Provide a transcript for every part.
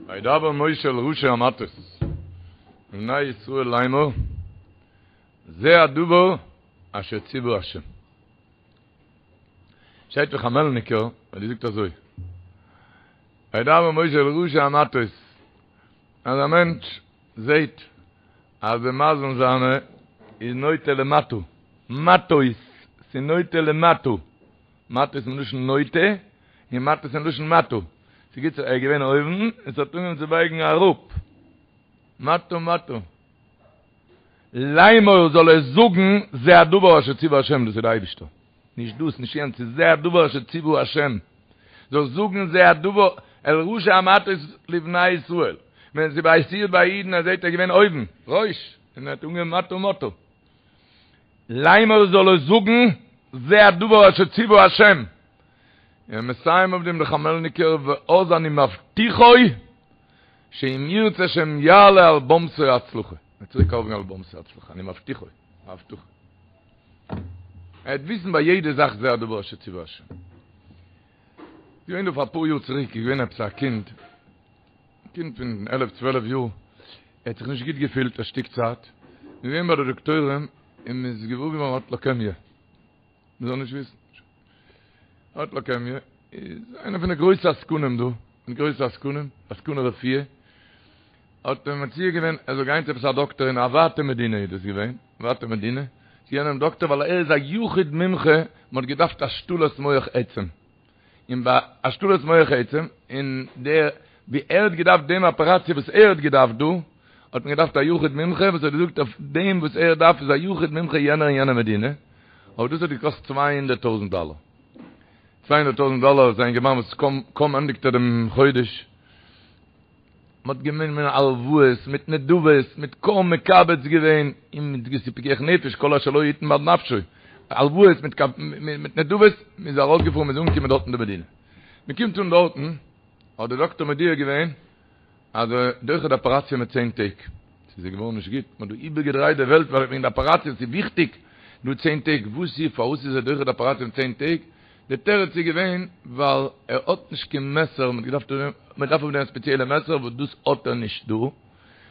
וידבר משה אל ראשי המטות לבני ישראל לאמור זה הדבר אשר ציוה השם. שטייט פון חמעלניקער אז ער זאגט אזוי וידבר משה אל ראשי המטות אז א מענטש זעהט אז די מזל זיינע איז נוטה למטה, מטות, ס'איז נוטה למטה, מטות מלשון נוטה, און מטות מלשון מטה, ס'גוט ער איז געווען אויבן און ס'האט אנגעהויבן צו בייגן אראפ, מטה מטה. לאמור זאל ער זאגן זה הדבר אשר ציוה השם, דאס איז די אייבישטער, נישט דאס נישט יענץ, ס'איז זה הדבר אשר ציוה השם, זאל זאגן זה הדבר אל ראשי המטות לבני ישראל, ווען ס'איז פאסירט ביי אידן אז זעהט ער געווען אויבן, ראש, און ער האט אנגעהויבן מטה מטה. לאמור זאל ער זאגן זה הדבר אשר ציוה השם, און מסיים אויף דעם דער חמעלניקער ואז אני מבטיחו שאם ירצה השם יעלה על במתי הצלחה, ער וועט צוריק ארויפגיין על במתי הצלחה, אני מבטיחו, א הבטחה. ער וועט וויסן ביי יעדע זאך זה הדבר אשר ציוה השם. געווען דא פאר אפאר יאר צוריק איז געווען עפעס א קינד, א קינד פון עלף צוועלף יאר, ער האט זיך נישט גוט געפילט א שטיק צייט, איז געווען ביי די דאקטוירים און מען איז געוואר געווארן ער האט לוקעמיע. מען זאל נישט וויסן. האט לוקעמיע, איז איינער פון די גרויסע עסקנים דא, פון די גרויסע עסקנים, עסקני רפואה, האט אים מציע געווען ער זאל גיין צו עפעס א דאקטער אין א ווייטע מדינה איז דאס געווען, ווייטע מדינה, צו יענעם דאקטער ווייל ער איז א יחיד מומחה, מען האט געדארפט השתלת מח עצם. און ביי השתלת מח עצם, און דער ווי ער האט געדארפט דעם אפעראציע וואס ער האט געדארפט דא, האט מען געדארפט א יחיד מומחה וואס האט געזאגט אויף דעם וואס ער דארף איז א יחיד מומחה יענער אין יענע מדינה, אבער דאס האט געקאסט 200 טויזנט דאלער. 200 טויזנט דאלער איז א אינגערמאן וואס קוים קוים ענדיגט ער דעם חודש. מען האט גענומען הלוואות מיט נדבות, מיט קוים מקבץ געווען, און מיט געוואוסע פיקוח נפש, כל אשר לו יתן בעד נפשו, הלוואות מיט מיט נדבות, מען איז ארויסגעפארן, מען איז אנגעקומען דארט אין די מדינה. מען קומט אן דארטן, האט דער דאקטער מודיע געווען, אז ער דוחה די אפעראציע מיט צען טעג. ס'איז געווארן נישט גוט, מען האט דא איבערגעדרייט די וועלט וועגן די אפעראציע, ס'איז וויכטיג, דא צען טעג, וואס איז, פארוואס איז ער דוחה די אפעראציע מיט צען טעג? די תירוץ איז געווען ווייל ער האט נישט קיין מעסער, מען האט געדארפט מען דארף אויף דעם א ספעציעלע מעסער וואס דאס האט ער נישט דא,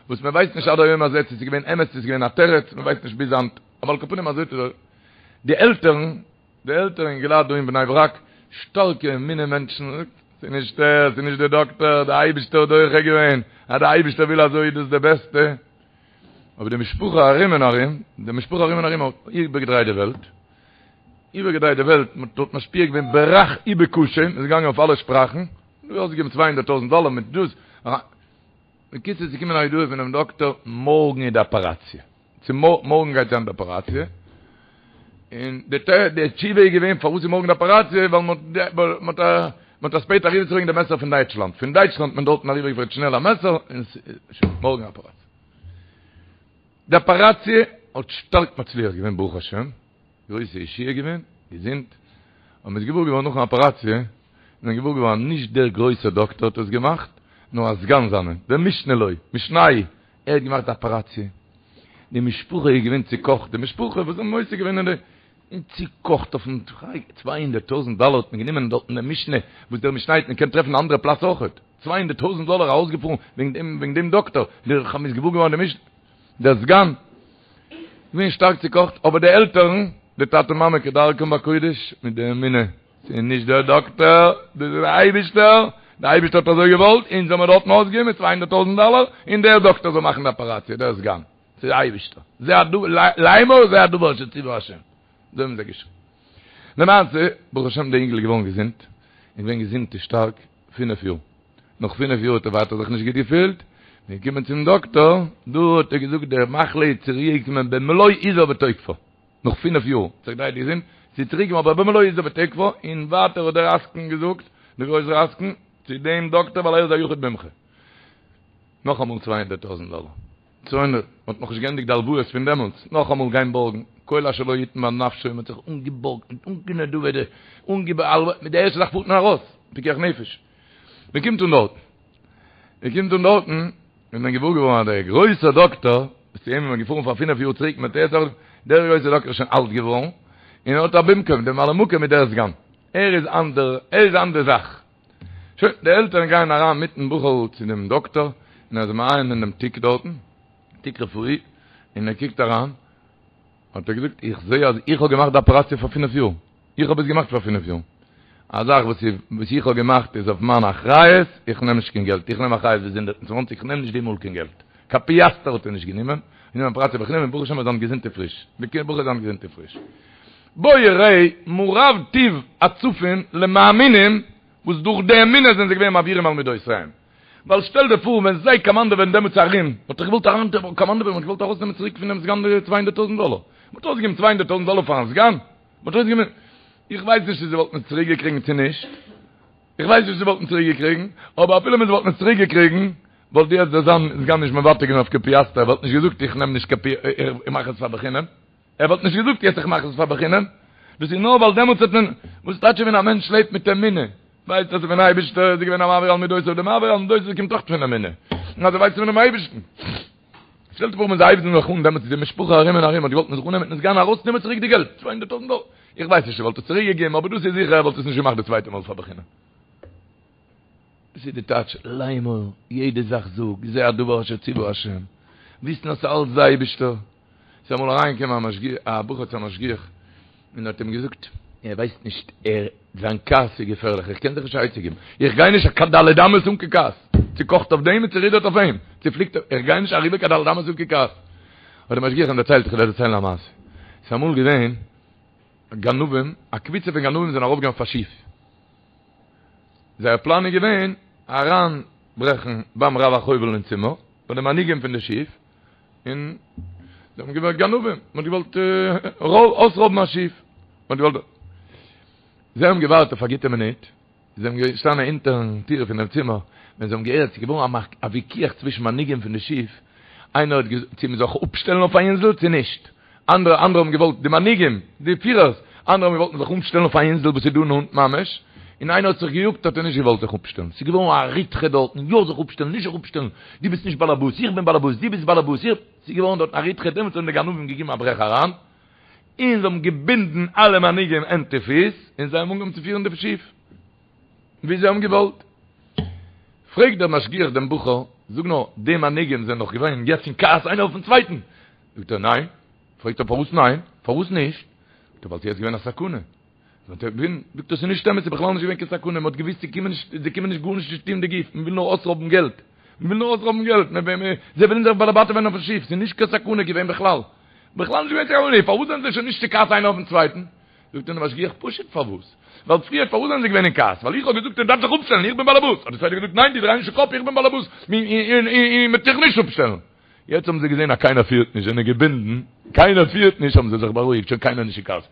וואס מען ווייסט נישט עד היום הזה צו ס'איז געווען אמת צו ס'איז געווען א תירוץ, מען ווייסט נישט ביז היינט, אבער על כל פנים אזוי האט ער די עלטערן, די עלטערן אינגעלייט דא אין בני ברק, שטארקע אמונה מענטשן, ס'איז נישט ער, ס'איז נישט די דאקטער, די אייבישטער האט דוחה געווען, אז די אייבישטער וויל אזוי איז דאס די בעסטע, אבער די משפחה ארום און ארום, די משפחה ארום און ארום האט איבערגעדרייט די וועלט, איבערגעדרייט די וועלט, מען האט משפיע געווען ברך ובקשה, מען איז געגאנגען אויף אלע שפראכן, דא אויסגעגעבן 200 טויזנט דאלער מיט דאס, בקיצור ס'איז געקומען א הודעה פונעם דאקטער, מארגן איז די אפעראציע, צו מארגן גייט זיין די אפעראציע, און די די תשובה איז געווען פארוואס איז מארגן די אפעראציע, ווייל מען האט מען האט אספייט אריבערצוברענגען די מעסער פון דייטשלאנד, פון דייטשלאנד האט מען דארטן אריבערגעפירט שנעל א מעסער, און שוין, מארגן אפעראציע. די אפעראציע האט שטארק מצליח געווען ברוך השם, גרויסע ישועה געווען, געזונט, און מ'איז געוואר געווארן נאכן אפעראציע, איז מען געוואר געווארן אז נישט דער גרויסער דאקטער האט עס געמאכט, נאר א סגן זיינער, דער משנה לו, משנהו, ער האט געמאכט די אפעראציע. די משפחה איז געווען צוקאכט, די משפחה וואס האבן עוסק געווען אין די, און צוקאכט אויפן 200 טויזנט דאלער האט מען גענומען דארטן דעם משנה, וואס דער משנה האט מען קען טרעפן אין אנדערע פלאץ אויכעט, 200 טויזנט דאלער ארויסגעפארן וועגן דעם וועגן דעם דאקטער, דער מ'איז געוואר געווארן דער משנה, דער סגן. געווען שטארק צוקאכט, אבער די עלטערן, די טאטע מאמע כדרכם בקודש, מיט די אמונה, ס'איז נישט דער דאקטער, דאס איז דער אייבישטער, דער אייבישטער האט אזוי געוואלט, אונז האמיר דארטן אויסגעגעבן 200 טויזנט דאלער, און דער דאקטער זאל מאכן די אפעראציע, דער סגן, ס'איז דער אייבישטער, זה הדבר, לאמור זה הדבר אשר ציווה השם, אזוי האבן זיי געשריגן. למעשה, ברוך השם דער אינגל איז געווארן געזונט, און געווען געזונט און שטארק פינף יאר. נאך פינף יאר האט ער ווייטער זיך נישט גוט געפילט, מ'איז געקומען צום דאקטאר, דא האט ער געזאגט די מחלה איז צוריק געקומען במלוא עוזה ותוקפה, נאך פינף יאר, האט זיך געדרייט געזונט, ס'איז צוריק געקומען אבער במלוא עוזה ותוקפה, און ווייטער האט דער עסקן געזאגט, דער גרויסער עסקן, צו דעם דאקטאר ווייל ער איז א יחיד מומחה. נאכאמאל 200 טויזנט דאלער. 200, מ'האט נאכנישט געענדיגט די הלוואות פון דעמאלטס, נאכאמאל גיין בארגן, כל אשר לו יתן בעד נפשו, מ'האט זיך אנגעבארגט מיט אנגענדבה'טע, אנגעבהאלוועט, מיט די ערשטע זאך פארט מען ארויס, פיקוח נפש. מען קומט אן דארטן, מען קומט אן דארטן, איז מען געוואר געווארן אז דער גרויסער דאקטאר, וואס צו אים איז מען געפארן פאר פינף יאר צוריק מיט ער, דער גרויסער דאקטאר איז שוין אלט געווארן, און ער האט א במקום, דער ממלא מקום איז דער סגן, ער איז אן דער, ער איז אן די זאך. שוין, די עלטערן גייען אריין מיטן בחור'ל צו דעם דאקטאר, און ער איז מעיין אין דעם תיק דארטן, תיק רפואי, און ער קוקט אריין, האט ער געזאגט, איך זעה אז איך האב געמאכט די אפעראציע פאר פינף יאר, איך האב עס געמאכט פאר פינף יאר, א זאך וואס וואס איך האב געמאכט איז אויף מיין אחריות, איך נעם נישט קיין געלט, איך נעם אחריות ביז 120, איך נעם נישט די מאל קיין געלט, קיין פיאסטער האט ער נישט גענומען, גענומען אפעראציע בחינם און ברוך השם ער איז היינט געזונט און פריש, די בחור איז היינט געזונט און פריש. בוא וראה מה רב טוב הצפון למאמינים וואס דורך די אמונה זענען זיי געווען מעבירים על מידותיהם. ווייל שטעל דיר פאר ווען זיי קאמאנדעווען דעמאלטס ארום, וואלט איך געוואלט אריין קאמאנדעווען וואלט געוואלט ארויסנעמען צוריק פונעם סגן די 200 טויזנט דאלער. מ'האט ארויסגעגעבן 200 טויזנט דאלער פארן סגן? מ'האט ארויסגעגעבן איך ווייס נישט צו זיי וואלטן עס צוריק געקריגן צו נישט, איך ווייס נישט צו זיי וואלטן צוריק געקריגן, אבער אפילו ווען זיי וואלטן עס צוריק געקריגן, וואלט יעצט דער סגן נישט מוותר געווען אויף קיין פיאסטער, ער וואלט נישט געזאגט איך נעם נישט קיין פי איך מאך עס פאר בחינם. ער וואלט נישט געזאגט יעצט איך מאך עס פאר בחינם, דאס איז נאר ווייל דעמאלטס האט מען, וואס טייטש ווען א מענטש לעבט מיט אמונה, ווייסט אז פון אייבערשטער איז געווען א מעביר על מידותיו, די מעביר על מידותיו קומט אויך פון אמונה, און אז ער ווייסט פונעם אייבערשטן. שטעל דיר פאר ווען זיי הייבן זיך אן דעמאלטס איז די משפחה ארום און ארום האט געוואלט מען זאל אננעמען מיטן סגן ארויסנעמען צוריק די געלט, 200 טויזנט דאלער, איך ווייס נישט ער וואלט עס צוריק געגעבן אבער דאס איז זיכער ער וואלט עס נישט געמאכט די צווייטע מאל פאר בחינם. דאס איז די טייטש לאמור, יעדע זאך זאג, זה הדבר אשר ציוה השם, וויסן אז ס'אלץ די אייבערשטער. ס'איז אמאל אריינגעקומען א משגיח, א בחור צו א משגיח, און האט אים געזאגט, ער ווייסט נישט, ער, זיין כעס איז געפערליך, איך קען זיך נישט א עצה געבן, איך גיי נישט קיין ד' אמות אן קיין כעס, צוקאכט אויף דעם און צורודערט אויף אים, צופליקט אויף, איך גיי נישט אריבער קיין ד' אמות אן קיין כעס. האט דער משגיח אים דערציילט, איך וועל דיר דערציילן א מעשה, ס'איז אמאל געווען גנבים, א קבוצה פון גנבים זענען ארויפגעגאנגען אויף א שיף, זייער פלאן איז געווען אריינברעכן ביים רב החובל אין צימער, ביי די מנהיגים פון די שיף, און זיי האבן געוואלט גנבים, מען האט געוואלט אויסרויבן א שיף, מען האט געוואלט, זיי האבן געווארט אויף א גוטע מינוט, זיי זענען געשטאנען אונטערן טיר פונעם צימער, ווען זיי האבן געהערט ס'איז געווארן א וויכוח צווישן מנהיגים פון די שיף, איינער האט געזאגט צו מען זאל זיך אפשטעלן אויף א אינזל צו נישט, אנדערע אנדערע האבן געוואלט, די מנהיגים, די פירערס, אנדערע האבן געוואלט מען זאל זיך אפשטעלן אויף א אינזל וואס איז דא נאנט ממש, און איינער האט זיך געיאגט האט ער נישט געוואלט זיך אפשטעלן, ס'איז געווארן א ריתחא דארטן, יא זיך אפשטעלן, נישט זיך אפשטעלן, דו ביסט נישט באלעבאס, איך בין באלעבאס, דו ביסט באלעבאס, איך, ס'איז געווארן דארטן א ריתחא, דעמאלטס האבן די גנבים געגעבן א ברעך אריין, און זיי האבן געבינדן אלע מנהיגים הענט און פיס, און זיי האבן אנגעהויבן צו פירן די שיף ווי זיי האבן געוואלט. פרעגט דער משגיח דעם בחור, זאג נאר, די מנהיגים זענען דאך געווען יעצט אין כעס איינער אויפן צווייטן, זאגט ער ניין, פרעגט ער פארוואס ניין? פארוואס נישט? זאגט ער ווייל ס'איז יעצט געווען א סכנה. זאגט ער ווען? זאגט ער ס'איז נישט אמת ס'איז בכלל נישט געווען קיין סכנה מ'האט געוויסט זיי קומען נישט זיי קומען נישט גארנישט נישט טון די גוף מ'וויל נאר אויסרויבן געלט מ'וויל נאר אויסרויבן געלט זיי ווילן זיך באלעבאטעווען אויפן שיף ס'איז נישט קיין סכנה געווען בכלל בכלל נישט געווען קיין סכנה פארוואס זענען זיי שוין נישט צו כעס איינער אויפן צווייטן? זאגט אים דער משגיח פשוט פארוואס ווייל פריער פארוואס זענען זיי געווען אין כעס ווייל איך האב געזאגט ער דארף זיך אפשטעלן איך בין באלעבאס האט דער צווייטער געזאגט ניין דו דריי נישט די קאפ איך בין באלעבאס און מ'וועט דיך נישט אפשטעלן יעצט האבן זיי געזען אז קיינער פירט נישט, זענען געבינדן, קיינער פירט נישט, האבן זיי זיך בארואיגט, שוין קיינער נישט אין כעס.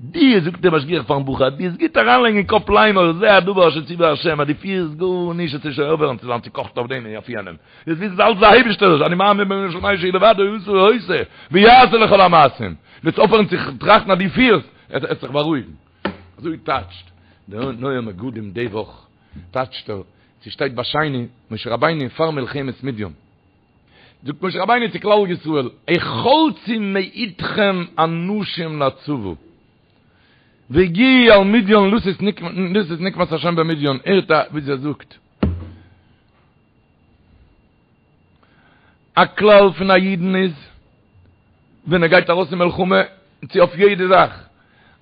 דו, זאגט דער משגיח פארן בחור, דו וועסט גוט אריינלייגן אין קאפ לאמור, זה הדבר אשר ציווה השם, אז דו פירסט גארנישט, וועסטו שוין אויפהערן צו זיין צוקאכט אויף דעם און אויף יענעם. דו וועסט וויסן ס'איז אלץ דער אייבערשטער, אני מאמין באמונה שלימה שהוא לבדו עשה ועושה, ויעשה לכל המעשים. דו וועסט אויפהערן צו טראכטן אז דו פירסט, וועסט זיך בארואיגן. אזוי טייטשט דער נועם מגדים די וואך, טייטשט ער, ס'שטייט ביי שני, משה רבינו פאר מלחמת מדיין, זאגט משה רבינו צו כלל ישראל, החלצו מאתכם אנשים לצבא, והגיעו אל מדיין לתת נקמת השם במדיין, הערט א ווי ער זאגט, א כלל פון א אידן איז, ווען ער גייט ארויס אין מלחמה, צו אויף יעדע זאך,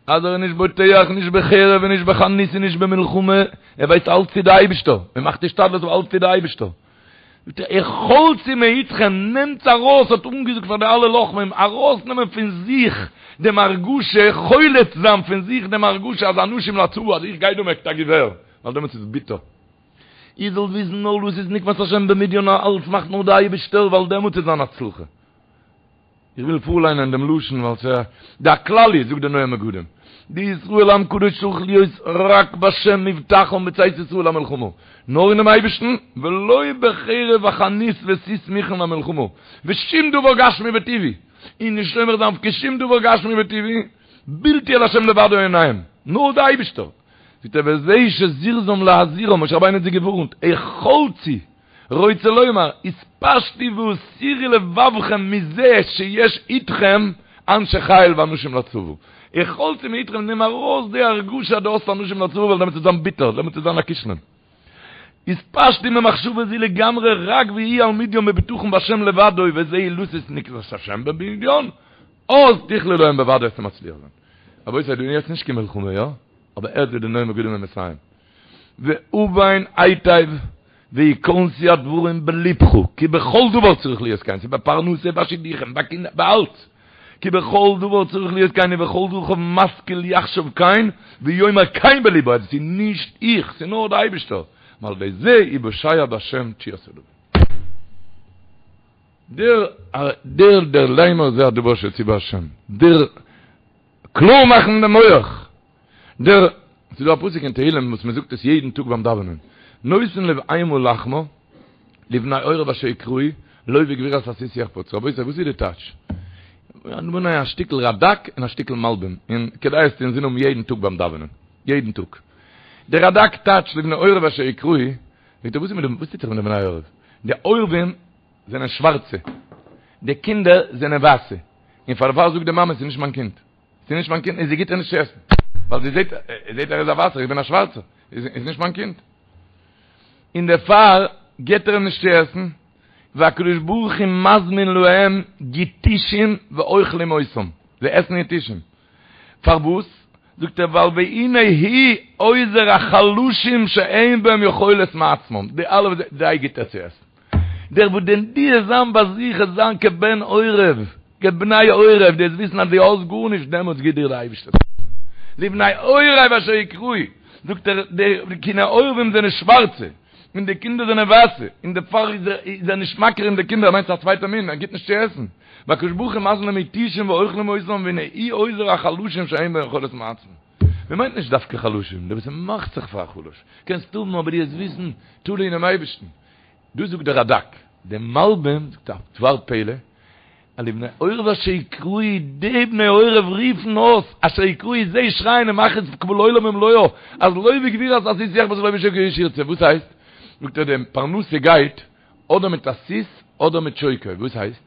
אז ער איז נישט בוטח נישט בחרב און נישט בחנית און נישט במלחמה, ער ווייסט אלץ טוט די אייבישטער, מען מאכט השתדלות אבער אלץ טוט די אייבישטער. זאגט ער, החלצו מאתכם, נעמטס ארויס, האט אנגעזאגט פאר די אלע לוחמים, ארויסנעמען פון זיך דעם הרגשה, חולץ זיין פון זיך דעם הרגשה אז אנשים לצבא, אז איך גיי דא מיט א געווער, ווייל דעמאלטס איז ביטער. איר זאלט וויסן נאר לתת נקמת השם במדיין, אלץ מאכט נאר די אייבישטער, ווייל דעמאלטס איז זיין הצלחה. איך וויל פארליינען דעם לשון ווייל ס'איז די הכלל איז, זאגט דער נועם מגדים, דישראל עם קדוש צריך להיות רק בשם מבטחם בצאת ישראל למלחמה, נאר אינעם אייבערשטן, ולא בחרב וחנית וסוס מוכן למלחמה, ושום דבר גשמי וטבעי, און נישט סומך זיין אויף קיין שום דבר גשמי וטבעי, בלתי אל השם לבדו עיניהם, נאר די אייבערשטער. זאגט ער וזה שזירזם להזהירם, משה רבינו האט זיי געווארנט, החלצו, רוצה לומר, התפשטו והסירו לבבכם מזה שיש איתכם אנשי חיל ואנשים לצבא. החלצו מאתכם, נעם ארויס די הרגשה אז דו האסט אנשים לצבא ווייל דעמאלטס וועט זיין ביטער, דעמאלטס וועט זיין א כישלון. יתפשטו ממחשבה זו לגמרי רק ויהיו על מדין בבטחון בהשם לבדו וזהו לתת נקמת השם במדין אז תכלה להם בוודאי וועסטו מצליח זיין. רבותי דא איז יעצט נישט קיין מלחמה יא? אבער הערט ווי די נועם מגדים איז מסיים והבן היטב ויכנסו הדברים בלבך כי בכל דבר צריך להיות כן ס'איז ביי פרנסה ביי שידוכים ביי קינדער ביי אלץ כי בכל דבר צריך להיות כן ובכל דרכיו משכיל יחשוב כן ויאמר כן בלבו אז ס'איז נישט איך ס'איז נאר די אייבישטער ועל ידי זה יוושע בהשם תשועת עולמים. דער דער דער לאמר זה הדבר אשר ציווה השם דער קלאר מאכן דעם מח דער ס'איז דא א פסוק אין תהלים וואס מ'זאגט עס יעדן טאג ביים דאווענען נותן לבהמה לחמה לבני עורב אשר יקראו לא בגבורת הסוס יחפץ רבותי וואס איז די טייטש? א שטיקל רדק און א שטיקל מלבים און כדאי עס צו אינזין האבן יעדן טאג ביים דאווענען יעדן טאג דער רדק טייטשט לבני עורב אשר יקראו זאגט ער וואס איז מיט די וואס טוט זיך מיט די בני עורב די עורבים זענען שווארצע די קינדער זענען ווייסע און פאר דערפאר זאגט די מאמע ס'איז נישט מיין קינד ס'איז נישט מיין קינד און זי גיט איר נישט צו עסן ווייל זי זעט זעט ער איז א ווייסער איך בין א שווארצער איז נישט מיין קינד און דערפאר גיט ער אים נישט צו עסן והקדוש ברוך הוא מזמין להם יתושים ואוכלים אותם זיי עסן יתושים פארוואס? זאגט ער ווייל והנה הוא עוזר החלשים שאין בהם יכולת מעצמם, די אלע וואס זיי גיט ער צו עסן. דער וואס דען דו וועסט זיין ביי זיך עס זיין כבן עורב, כבני עורב, דו וועסט וויסן אז דו האסט גארנישט דעמאלטס גיט דיר דער אייבערשטער צו עסן. לבני עורב אשר יקראו, זאגט ער די קיני עורבים זענען שווארצע, און די קינדער זענען ווייסע, און דערפאר איז ער נישט מכיר אין די קינדער, ער מיינט ס'איז א צווייטע מין, ער גיט נישט צו עסן. והקדוש ברוך הוא מזמין להם יתושים ואוכלים אותם והנה הוא עוזר החלשים שאין בהם יכולת מעצמם. מען מיינט נישט דווקא חלשים, דער וואס מאכט זיך פאר א חלש, קענסט האבן אבער דו וועסט וויסן, תלוי אינעם אייבערשטן. דאס זאגט דער רדק. דער מלבים זאגט א דבר פלא, אז לבני עורב אשר יקראו, די בני עורב רופן אויס, אשר יקראו, זיי שרייען און מאכן עס קבל עולם ומלואו, אז לא בגבורת הסוס יחפץ ולא בשוקי איש ירצה, וואס הייסט? זאגט ער די פרנסה גייט אדער מיט א סוס אדער מיט שוקו, וואס הייסט?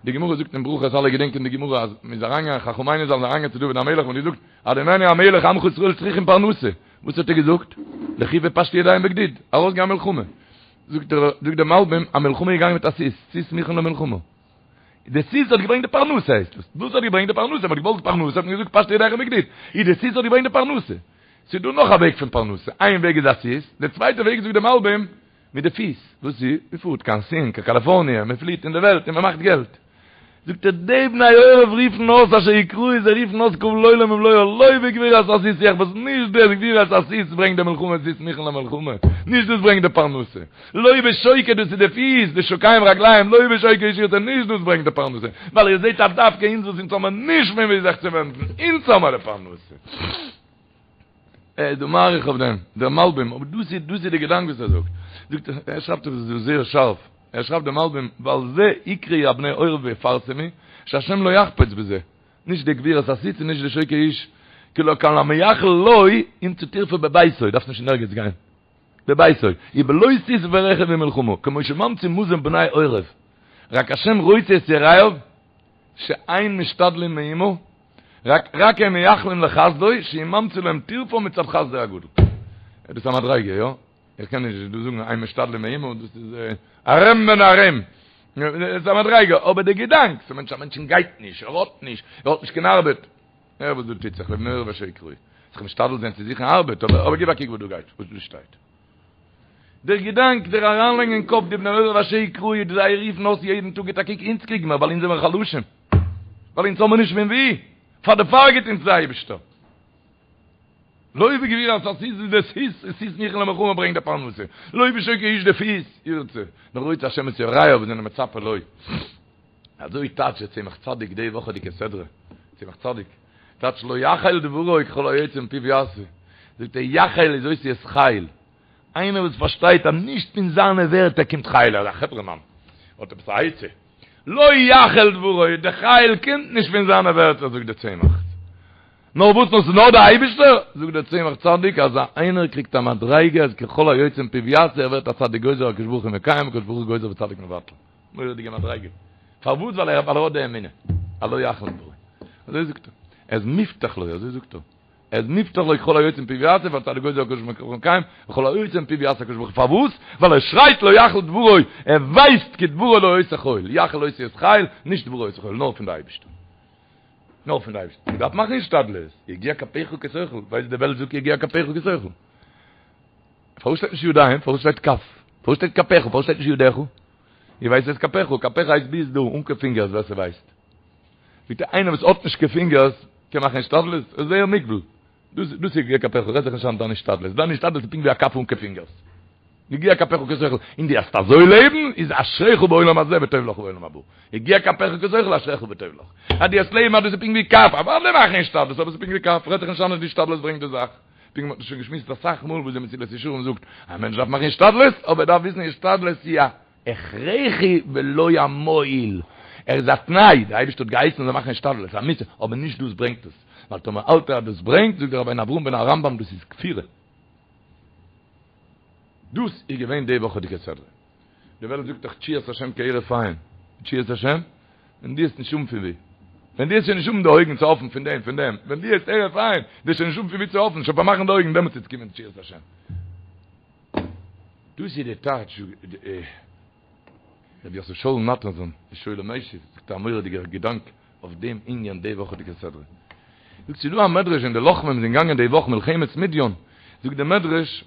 די גמרא זאגט אין ברכות אלע געדענקען די גמרא אז מ'איז אריינגעגאנגען חכמינו ז"ל זענען אריינגעגאנגען צו דוד המלך און געזאגט אדוננו המלך עמך ישראל צריכים פרנסה, וואס האט ער געזאגט? לכו ופשטו ידיהם בגדוד, ארויסגיין מלחמה, זאגט דער זאגט דער מלבים א מלחמה איז געגאנגען מיט א סוס, סוס מוכן למלחמה, די סוס האט געברענגט די פרנסה הייסט דאס, דאס האט געברענגט די פרנסה, מ'האט געוואלט פרנסה האט מען געזאגט פשטו ידיכם בגדוד, איז די סוס האט געברענגט די פרנסה, ס'איז דא נאך א וועג פון פרנסה, איין וועג איז א סוס, די צווייטע וועג זאגט דער מלבים מיט די פיס, וואס איז? מען פארט קיין סין, קיין קאליפארניע, מען פליעט אין די וועלט און מען מאכט געלט. זאגט ער, די בני עורב רופן אויס אשר יקראו, זיי רופן אויס קבל עולם ומלואו, לא בגבורת הסוס יחפץ, נישט די גבורת הסוס ברענגט די מלחמה, סוס מוכן למלחמה, נישט דאס ברענגט די פרנסה, לא בשוקי דאס איז די פיס, די שוקיים רגליים, לא בשוקי איש ירצה, נישט דאס ברענגט די פרנסה, ווייל איר זעט אז דווקא אונז וואס אונז האמער נישט פון וואו זיך צו ווענדן, אונז האמער די פרנסה. ער איז דא מאריך אויף דעם, דער מלבים, אבער דאס איז דאס איז די געדאנק וואס ער זאגט. זאגט ער, ער שרייבט עס דא זייער שארף, ער שרייבט דער מלבים, ועל זה יקראו הבני עורב ויפרסמו, שהשם לא יחפץ בזה, נישט די גבורת הסוס און נישט די שוקי איש, כי לא כל המייחל לו ימצא טרפה בביתו, דארפסט נישט אין ערגעץ גיין, בביתו, ובלא סוס ורכב ומלחמה, כמו שממציא מזון בני עורב, רק השם רוצה את יראיו, שאין משתדלים מאומה, רק רק הם מייחלים לחסדו, שהוא ממציא להם טרפה מצד חסדו הגדול. דאס איז א מדריגה, יא? איך קען נישט דא זאגן אין משתדלים מאומה, דאס איז ארם בן ארם. דאס איז א מדריגה, אבער די געדאנק, ס'מיינט א מענטשן גייט נישט, ער האט נישט, ער האט נישט קיין ארבעט. הער וואס דא טוט זיך, לבני עורב אשר יקראו. זיך משתדל זיין צו זוכן ארבעט, אבער אבער גיב א קוק וואס דא גייט, וואס דא שטייט. דער געדאנק, דער אריינלייגן אין קאפ די בני עורב אשר יקראו, זיי רופן אויס יעדן טאג גיט א קוק, אונז קריגן מיר ווייל אונז זעמיר חלשים. ווייל אונז האמיר נישט פון ווי, פאר דערפאר גיט אונז דער אייבערשטער. לא בגבורת הסוס איז די סוס, איז סוס מוכן למלחמה ברענגט די פרנסה, לא בשוקי איש די פיס, ירצה, נאר רוצה השם את יראיו וואס זענען מצפה לו. אזוי טייטשט דער צמח צדיק די וואכעדיגע סדרה, צמח צדיק טייטשט לא יחל דברו ככל היוצא מפיו יעשה, זאגט ער יחל איז אותיות חיל, איינער וואס פארשטייט אז נישט פון זיינע ווערטער קומט חיל, ער איז א חברה מאן, האט עפעס א עצה, לא יחל דברו, די חיל קומט נישט פון זיינע ווערטער זאגט דער צמח, נאר וואס נאר ס'איז נאר דער אייבישטער, זאגט דער צמח צדיק אז איינער קריגט א מדריגה אז ככל היוצא מפיו יעשה ער ווערט א צדיק גוזר הקדוש ברוך הוא מקיים הקדוש ברוך הוא גוזר וצדיק מבטל, מורא'דיגע מדריגה, פארוואס ווייל ער האט די אמונה, אז לא יחל דברו, אזוי זאגט ער, ער איז מובטח לו, אזוי זאגט ער. ער איז מובטח לו כל היוצא מפיו יעשה, והצדיק גוזר הקדוש ברוך הוא מקיים, וכל היוצא מפיו יעשה הקדוש ברוך הוא. פארוואס? ווייל ער שרייט לא יחל דברו, ער ווייסט כי דברו לא עושה חיל, יחל אותיות חיל, נישט דברו עושה חיל, נאר פון די אייבערשטער. נאר פון די אייבערשטער. מען דארף מאכן השתדלות, יגיע כפיך כי תאכל, ווייסט די וועלט זאגט יגיע כפיך כי תאכל. פארוואס שטייט נישט ידיים? פארוואס שטייט כף? פארוואס שטייט כפיך? פארוואס שטייט נישט ידיך? איר ווייסט וואס איז כפיך? כפיך הייסט ביז דא, אן קיין פינגערס, ווער ס'ווייסט. ביטע איינער וואס האט נישט קיין פינגערס קען מאכן השתדלות? עס איז זייער מוגבל. דאס דאס איז יגיע כפיך, רעד זיך נישט איין דיין השתדלות. דיין השתדלות איז פונקט ווי א כף אן קיין פינגערס. יגיע כפיך כי תאכל, און דו וועסט אזוי לעבן, איז אשריך בעולם הזה וטוב לך בעולם הבא. יגיע כפיך כי תאכל אשריך וטוב לך. אז דו וועסט לעבן אז דאס איז פונקט ווי כף, אוודאי מאכן השתדלות, אבער עס איז פונקט ווי כף, רעד זיך נישט איין אז די השתדלות ברענגט די זאך. פונקט מ'האט שוין געשמועסט אסאך מאל וואס די מסילת ישרים זאגט, א מענטש דארף מאכן השתדלות, אבער ער דארף וויסן השתדלות איז א הכרחי ולא המועיל, ער איז א תנאי, דער אייבערשטער האט געהייסן מ'זאל מאכן השתדלות, א מצוה, אבער נישט דאס ברענגט עס, ווייל טאמער האלט ער אז דאס ברענגט, זאגט דער רבינו אברהם בן הרמב"ם דאס איז כפירה. דאס איז געווען די וואכעדיגע סדרה. די וועלט זאגט דאך תשועת השם כהרף עין, תשועת השם, ווען דו וועסט נישט האבן פון ווי, ווען דו וועסט שוין נישט האבן די אויגן צו האפן פון דעם, פון דעם, ווען דו וועסט הרף עין, דו וועסט שוין נישט האבן פון ווי צו האפן, שוין פארמאכן די אויגן, דעמאלטס וועט קומען תשועת השם. דאס איז די טייטש, רבי יוסף שאול נאטאנזאהן, די שואל ומשיב, זאגט א מורא'דיגער געדאנק אויף דעם ענין די וואכעדיגע סדרה. זאגט ס'איז דא א מדרש ווען די לוחמים זענען געגאנגען די וואך מלחמת מדיין, זאגט די מדרש,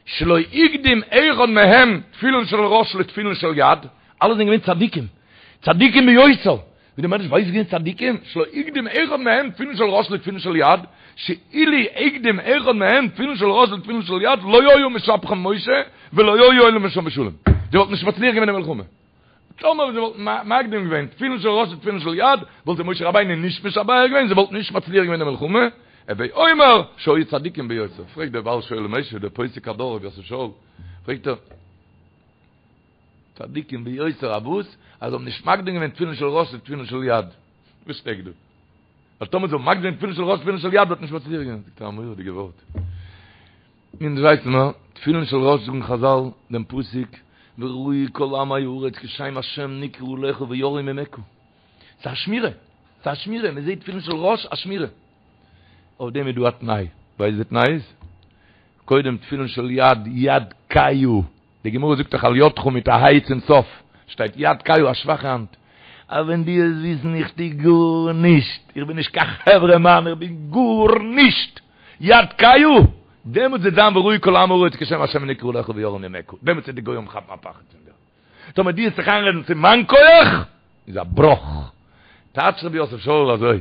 שלא הקדים אחד מהם תפילין של ראש לתפילין של יד, אלע זענען געווען צדיקים, צדיקים ביותר, ווי די מדרש ווייסט געווען צדיקים, שלא הקדים אחד מהם תפילין של ראש לתפילין של יד, שאילו הקדים אחד מהם תפילין של ראש לתפילין של יד, לא היה משבחן משה ולא היו עולים משם בשלום, זיי וואלטן נישט מצליח געווען אין מלחמה. טאמער זיי וואלטן מקדים געווען תפילין של ראש לתפילין של יד, וואלט זיי משה רבינו נישט משבח געווען, זיי וואלטן נישט מצליח געווען אין די מלחמה, הוי אומר שהיו צדיקים ביותר. פרעגט דער בעל שואל ומשיב, דער פוסק הדור רבי יוסף שאול, פרעגט ער, צדיקים ביותר אויף וואס? אז זיי האבן נישט מקדים געווען תפילין של ראש לתפילין של יד. וואס שטעקט דא? ווייל טאמער זיי האבן מקדים געווען תפילין של ראש לתפילין של יד וואלט נישט מצליח געווען. זאגט ער א מורא'דיגע ווארט. אונז ווייסן מיר, תפילין של ראש זאגן חזל דעם פסוק וראו כל עמי הארץ כי שם השם נקרא עליך ויראו ממך. ס'איז א שמירה, ס'איז א שמירה, מען זעט תפילין של ראש א שמירה. אויף דעם איז דא א תנאי, ווייסט די תנאי איז? קודם תפילין של יד, יד כהה, די גמרא זאגט דאך על ידך מיט א ה' צום סוף, שטייט יד כהה א שוואכע האנט. אז ווען דו וועסט וויסן איך טו גארנישט, איך בין נישט קיין חברה מאן, איך בין גארנישט, יד כהה, דעמאלטס וועט זיין וראו כל עמי הארץ כי שם השם נקרא עליך ויראו ממך, דעמאלטס וועט די גוים כאפן א פחד פון דיר. טאמער דו וועסט זיך איינרעדן ס'איז מיין כח, איז א בראך. טייטשט רבי יוסף שאול אזוי,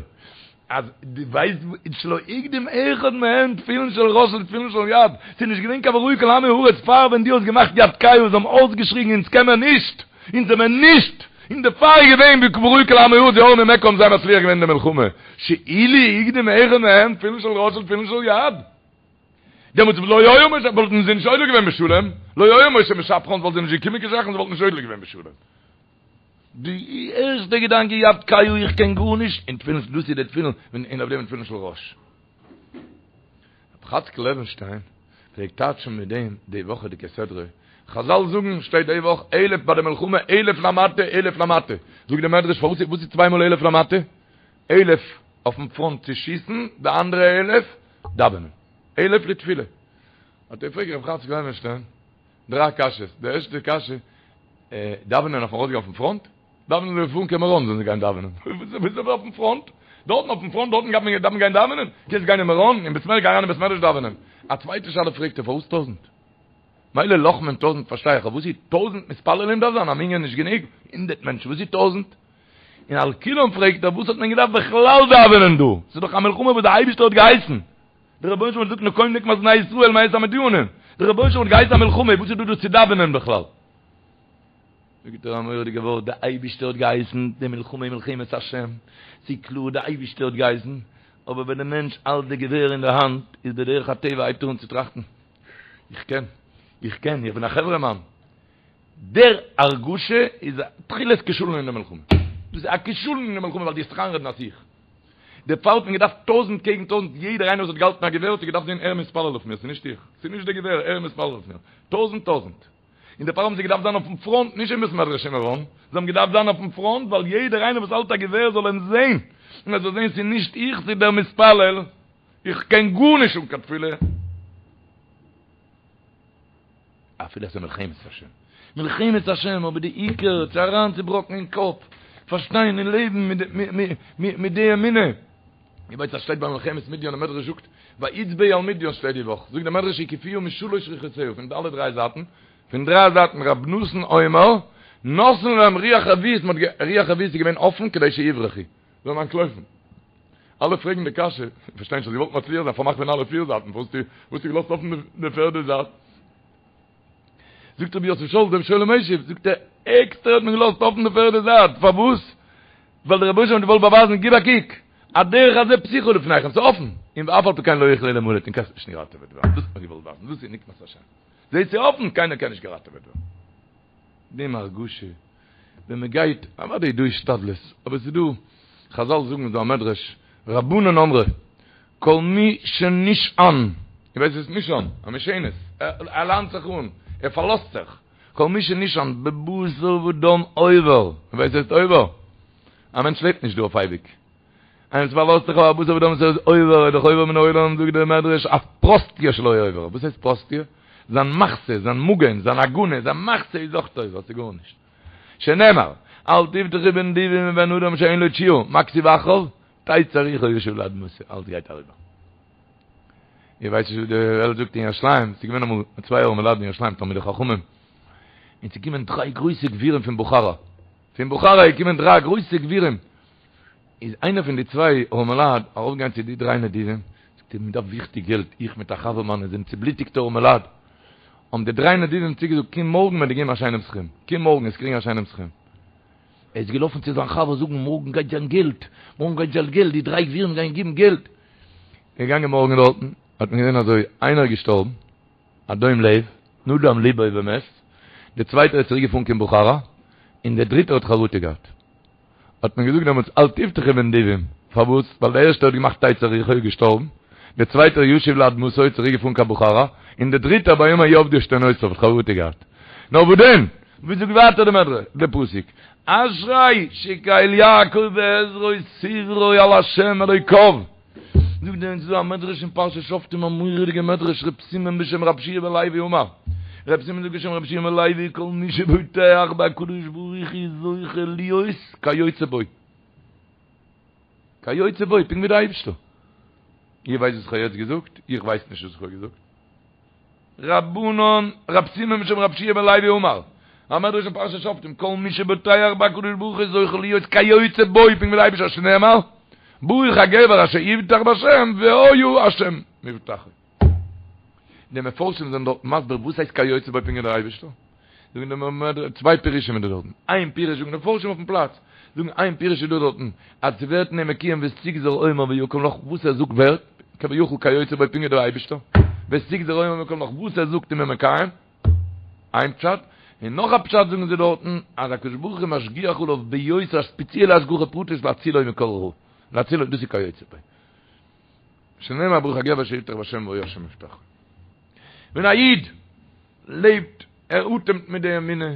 אז דו ווייסט שלא הקדים אחד מהם תפילין של ראש לתפילין של יד, ס'איז נישט געווען קיין וראו כל עמי הארץ פאר ווען דו האסט געמאכט יד כהה זיי האבן אויסגעשריגן אונז קען מען נישט, אונז זעמער נישט, און דערפאר איז געווען וראו כל עמי הארץ ויראו ממך האבן זיי מצליח געווען אין די מלחמה, שאילו הקדים אחד מהם תפילין של ראש לתפילין של יד. דעמאלטס לא היה משה וואלטן זיי נישט עולה געווען בשלום, לא היה משה משבחן וואלט זיי נישט געקומען קיין זאכן זיי וואלטן נישט עולה געווען בשלום. די ערשטע געדאנק איז יד כהה איך קען גארנישט, און תפילין דאס איז די תפילין און אויף דעם תפילין של ראש. רבי חאצקל לעווענשטיין פלעגט טייטשן מיט דעם די וואכעדיגע סדרה, חזל זאגן שטייט די וואך אלף ביי די מלחמה אלף למטה אלף למטה, זאגט די מדרש פארוואס וואס איז צוויי מאל אלף למטה? אלף אויפן פראנט צו שיסן, די אנדערע אלף דאווענען, אלף לתפילה. האט ער געפרעגט רבי חאצקל לעווענשטיין דריי קשיות, די ערשטע קשיא, דאווענען אויפן ארויסגיין אויפן פראנט? דאווענען זאל פארן קיין מירון זאלן זיי גיין דאווענען. וואס איז אויפן פראנט? דארטן אויפן פראנט דארטן גייט מען דארף מען גיין דאווענען? קענסט גיין אין מירון אין בית מדרש גיי אריין אין בית מדרש דאווענען. א צווייטע שאלה פרעגט ער פארוואס טויזענט? מילא לוחמים טויזענט פארשטיי איך אבער וואס איז טויזענט מתפללים דארף זיין א מנין נישט גענוג? הונדערט מענטשן וואס איז טויזענט? און על כולם פרעגט ער וואס האט מען געדארפט בכלל דאווענען דא? ס'איז דאך א מלחמה וואס דער אייבערשטער האט געהייסן. דער רבונו של עולם האט געזאגט נקום נקמת בני ישראל מאת המדינים. דער רבונו של עולם האט געהייסן א מלחמה וואס איז דא דא צו דאווענען בכלל? זאגט ער א מורא'דיגע ווארט, דער אייבישטער האט געהייסן די מלחמה איז מלחמת השם, ס'איז קלאר דער אייבישטער האט געהייסן, אבער ווען דער מענטש האלט די געווער אין די האנט, איז בדרך הטבע הייבט ער אן צו טראכטן, איך קען, איך קען, איך בין א חברה מאן. דער הרגשה איז א תחילת כשלון אין די מלחמה. דאס איז א כשלון אין די מלחמה ווייל דו האסט זיך איינרעדן אז איך. דערפאר האט מען געדארפט טויזענט קעגן טויזענט, יעדער איינער וואס האט געהאלטן א געווער האט זיך געדארפט זען ער מתפלל אויף מיר, ס'איז נישט איך, ס'איז נישט די געווער, ער מתפלל אויף מיר. טויזענט טויזענט. און דערפאר האבן זיי געדארפט זיין אויפן פראנט, נישט אין בית מדרש אין מירון, זיי האבן געדארפט זיין אויפן פראנט ווייל יעדער איינער וואס האלט א געווער זאל אים זען, און ער זאל זען ס'איז נישט איך, ס'איז דער מתפלל. איך קען גארנישט אן קיין תפילה. אפילו עס איז מלחמת השם. מלחמת השם, אבער די עיקר צו אריינצובראקן אין קאפ, פארשטיין און לעבן מיט די אמונה. איר ווייסט אז שטייט ביי מלחמת מדיין, די מדרש זאגט, ויצבאו על מדיין שטייט די וואך, זאגט די מדרש הקיפוה משלש רוחותיה, פון אלע דריי זייטן, פון דריי זייטן רב נתן אומר, נתן להם רוח רביעית, רוח רביעית איז געווען אפן כדי שיברחו, זאלן אנטלויפן. אלע פרעגן די קשיא, פארשטיי נישט, האסט געוואלט מצליח זיין, פארמאך פון אלע פיר זייטן, וואס האסטו געלאזט אפן די פערדע זייט? זאגט רבי יוסף שאול, דער שואל ומשיב, זאגט ער, עקסטער האט מען געלאזט אפן די פערדע זייט, פארוואס? ווייל דער רבונו של עולם האט געוואלט באווייזן, גיב א קוק, הדרך הזה פתוחה לפניכם, ס'איז אפן, און ואף על פי כן לא יוכלו להמלט, און קענסט נישט געראטעוועט ווערן, דאס האט מען געוואלט ווייזן, דאס איז נקמת השם, זעהט ס'איז אפן, קיינער קען נישט געראטעוועט ווערן. דעם הרגשה ווען מען גייט, אוודאי איז דא השתדלות, אבער ס'איז דא, חזל זאגן איז דא א מדרש, רבנן אמרי, כל מי שנשען, איר ווייסט וואס איז נשען? א משענת, ער ליינט זיך אן, ער פארלאזט זיך, כל מי שנשען בבשר ודם עובר, איר ווייסט וואס הייסט עובר? א מענטש לעבט נישט דא אויף אייביג, איינער וואס פארלאזט זיך אויף א בשר ודם וואס איז עובר, איז דאך עובר מן העולם, זאגט דער מדרש, אף פרוסתיא שלו עובר, וואס הייסט פרוסתיא? זיין מחסה, זיין מגן, זיין הגנה, זיין מחסה איז אויך עובר, ס'איז גארנישט. שנאמר, אל תבטחו בנדיבים ובבן אדם שאין לו תשועה, מה כתיב אחריו? תצא רוחו וישוב לאדמתו, אלץ גייט אריבער. איר ווייסט נישט וואס די וועלט זאגט אין ירושלים, ס'איז געווען אמאל צוויי ארעמע לייט אין ירושלים, תלמידי חכמים, און ס'איז געקומען דריי גרויסע גבירים פון בוכארא, פון בוכארא איז געקומען דריי גרויסע גבירים, איז איינער פון די צוויי ארעמעלייט ארויפגעגאנגען צו די דריי נדיבים, זאגט ער, מען דארף וויכטיג געלט, איך מיט א חבר מיינע זענען צובלוטיגטע ארעמעלייט, האבן די דריי נדיבים צוגעזאגט, קום מארגן מ'וועט דיר געבן א שיינעם סכום, קום מארגן וועסט קריגן א שיינעם סכום. ער איז געלאפן צו זיין חבר זאגן, מארגן גייט זיין געלט, מארגן גייט זיין געלט, די דריי גבירים גייען געבן געלט. ער איז געגאנגען מארגן דארטן, האט מען געזען אזוי, איינער איז געשטארבן, א דום לב, נדם ליבו ומת, דער צווייטער איז צוריק געפארן קיין בוכארא, און דער דריטער האט חרטה געהאט. האט מען געזאגט דעמאלטס אל תבטחו בנדיבים, פארוואס? ווייל דער ערשטער האט געמאכט תצא רוחו איז געשטארבן, דער צווייטער ישוב לאדמתו איז צוריק געפארן קיין בוכארא, און דער דריטער ביום ההוא אבדו עשתונותיו האט חרטה געהאט. נאר וואס דען? ווי זאגט ווייטער די מדרש, די פסוק, אשרי שקל יעקב בעזרו שברו על ה' אלוקיו. זאגט דער ס'איז דא א מדרש אין פרשת שופטים א מורא'דיגע מדרש ר' סימון בשם רב שיע בן לוי אמר ר' סימון זאגט בשם רב שיע בן לוי כל מי שבוטח בהקדוש ברוך הוא זוכה להיות כיוצא בו כיוצא בו פונקט ווי די אייבערשטער איר ווייסט וואס איך האב יעצט געזאגט? איך ווייס נישט וואס איך האב געזאגט. רבנן, רב סימון בשם רב שיע בן לוי אמר, א מדרש אין פרשת שופטים, כל מי שבוטח בהקדוש ברוך הוא זוכה להיות כיוצא בו, פונקט ווי דער אייבישטער שנאמר, ברוך הגבר אשר יבטח בהשם והיה השם מבטחו. די מפרשים זענען דארט מסביר וואס הייסט כיוצא בו פונקט ווי דער אייבישטער. זאגן די מ צוויי פירושים איז דא דארטן. איין פירוש זאגן די מפרשים אויפן פלאץ, זאגן איין פירוש איז דא דארטן, אז ס'ווערט אין אים מקוים ותגזר אומר ויקם לך וואס ער זאגט ווערט, כביכול כיוצא בו פונקט ווי דער אייבישטער, ותגזר אומר ויקם לך וואס ער זאגט איז מען מקיים, איין פשט, און נאך א פשט זאגן זיי דארטן, אז הקדוש ברוך הוא משגיח עליו ביותר א ספעציעלע השגחה פרטית להצילו מכל רע, להצילו דאס איז כיוצא בו. שנאמר ברוך הגבר אשר יבטח בהשם והיה השם מבטחו. ווען א איד לעבט, ער אטעמט מיט די אמונה.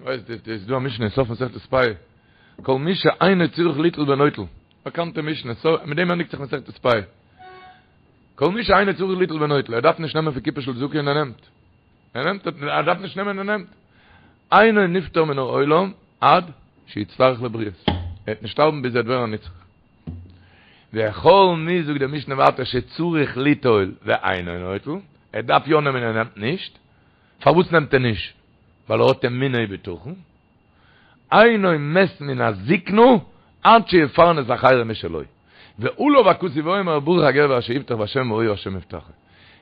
ווייסט דאס איז דא א משנה אין סוף מסכת פאה, כל מי שאינו צריך ליטול ונוטל, באקאנטע משנה, מיט דעם ענדיגט זיך מסכת פאה. כל מי שאינו צריך ליטול ונוטל, ער דארף נישט נעמען פון קופה של צדקה און ער נעמט. ער נעמט, ער דארף נישט נעמען און ער נעמט. אינו נפטר מן העולם עד שיצטרך לבריות. ער וועט נישט שטארבן ביז ער וועט ווערן א נצרך. וכל מי, זאגט די משנה ווייטער, שצריך ליטול ואינו נוטל, ער דארף יא נעמען און ער נעמט נישט, פארוואס נעמט ער נישט? ווייל ער האט אמונה ובטחון, אינו מת מן הזקנה עד שיפרנס אחרים משלו. ועליו הכתוב אומר ברוך הגבר אשר יבטח בהשם והיה השם מבטחו.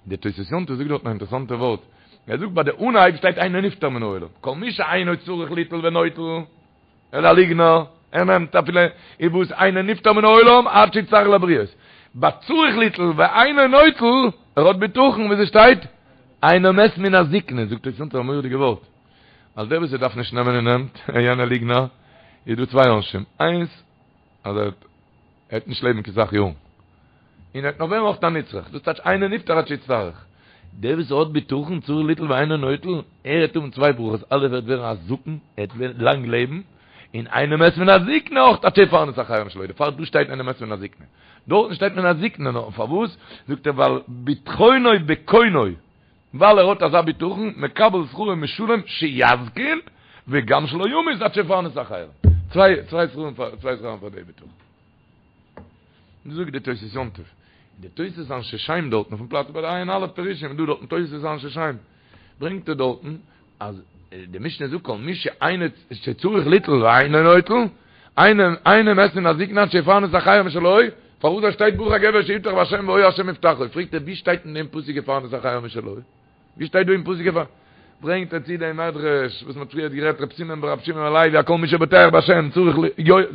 די תוס' יום טוב זאגט דארטן א אינטערעסאנטע ווארט, ער זאגט ביי די אנהייב שטייט אינו נפטר מן העולם, כל מי שאינו צריך ליטול ונוטל, ער איז א ליגנער, ער נעמט אפילו איז וואס אינו נפטר מן העולם עד שיצטרך לבריות. ביי צריך ליטול ואינו נוטל, ער האט בטחון ווי ס'שטייט, אינו מת מן הזקנה, זאגט תוס' יום טוב א מורא'דיגע ווארט, אז דער וואס ער דארף נישט נעמען און נעמט, יענער ליגנער, איז דא צוויי עונשים, איינס אז ער וועט נישט לעבן קיין סאך יארן, און ער וועט נאך ווערן אויך א נצרך, דאס טייטש אינו נפטר עד שיצטרך. דער וואס האט בטחון צריך ליטול ואינו נוטל, ער וועט האבן צוויי ברכות, א' ער וועט ווערן א זקן, ער וועט לאנג לעבן, און אינו מת מן הזקנה אויך עד שיפרנס אחרים משלו, דערפאר דא שטייט אינו מת מן הזקנה. דארטן שטייט מן הזקנה נאר פארוואס? זאגט ער ווייל בטחונו בקונו, ווייל ער האט אזא בטחון, מקבל שכרו משולם שיזקין וגם שלא ימות עד שיפרנס אחרים. צוויי צוויי שכרים פאר צוויי שכרים פאר די בטחון. זאגט די תוס' יום טוב, די תוס' אנשי שם דארטן אויפן פלאץ ביי די עיין א' פירושים איז דא דארטן תוס' אנשי שם, ברענגט ער דארטן אז די משנה זאגט כל מי שאינו שצריך ליטול ואינו נוטל, אינו אינו מת מן הזקנה עד שיפרנס אחרים משלו, פארוואס דא שטייט ברוך הגבר שיבטח בהשם והיה השם מבטחו, פרעגט ער ווי שטייט אין דעם פסוק יפרנס אחרים משלו? ווי שטייט דא אין פסוק יפרנס? ברענגט ער צו דעם מדרש וואס מ'האט פריערט גערעדט ר' סימון בר' שמעון בן לוי כל מי שבוטח בהשם צריך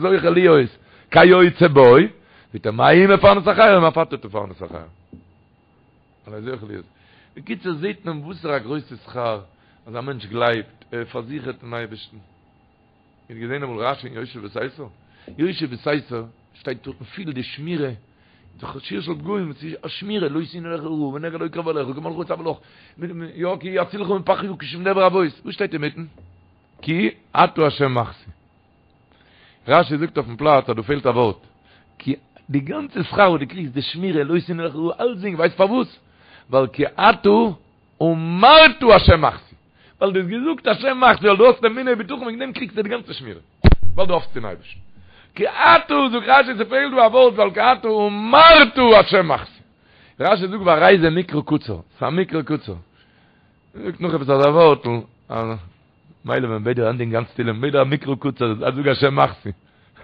זוכה להיות כיוצא בו, זאגט ער מה הוא מפרנס אחרים אף אתה תפרנס אחרים. אזוי זוכה להיות. בקיצור זעהט מען וואסערע א גרויסע שכר אז א מענטש גלייבט, ער פארזיכערט אין אייבערשטן. איר האט געזעהן אמאל רשי אין יושב בסתר? יושב בסתר שטייט דארטן פיל די שמירה, שיר של פגעים, ס'איז א שמירה, לא תאונה אליך רעה ונגע לא יקרב אליך, כי מלאכיו יצוה לך, יא כי יצילך מפח יקש ומדבר עבות, וואס שטייט אינמיטן? כי אתה השם מחסי. רשי זאגט אויפן פלאץ אז דא פעלט א ווארט, כי די גאנצע שכר וואס דו קריגסט די שמירה לא תאונה אליך רעה אלצדינג ווייסט פארוואס? ווייל כי אתה אמרת השם מחסי, ווייל דו האסט געזאגט השם מחסי ווייל דו האסט אמונה ובטחון וועגן דעם קריגסטו די גאנצע שמירה, ווייל דו האפסט אין אייבערשטן. כי אתה זאגט רשי ס'פעלט דא א ווארט ווייל כי אתה אמרת השם מחסי. רשי זאגט והרי זה מקרא קצר, ס'איז א מקרא קצר. זאגט נאך עפעס אזא ווארטל, מילא ווען מ'בעט דיר ענדיגן גאנץ תהילים, מ'בעט דיר א מקרא קצר, אז זאג השם מחסי,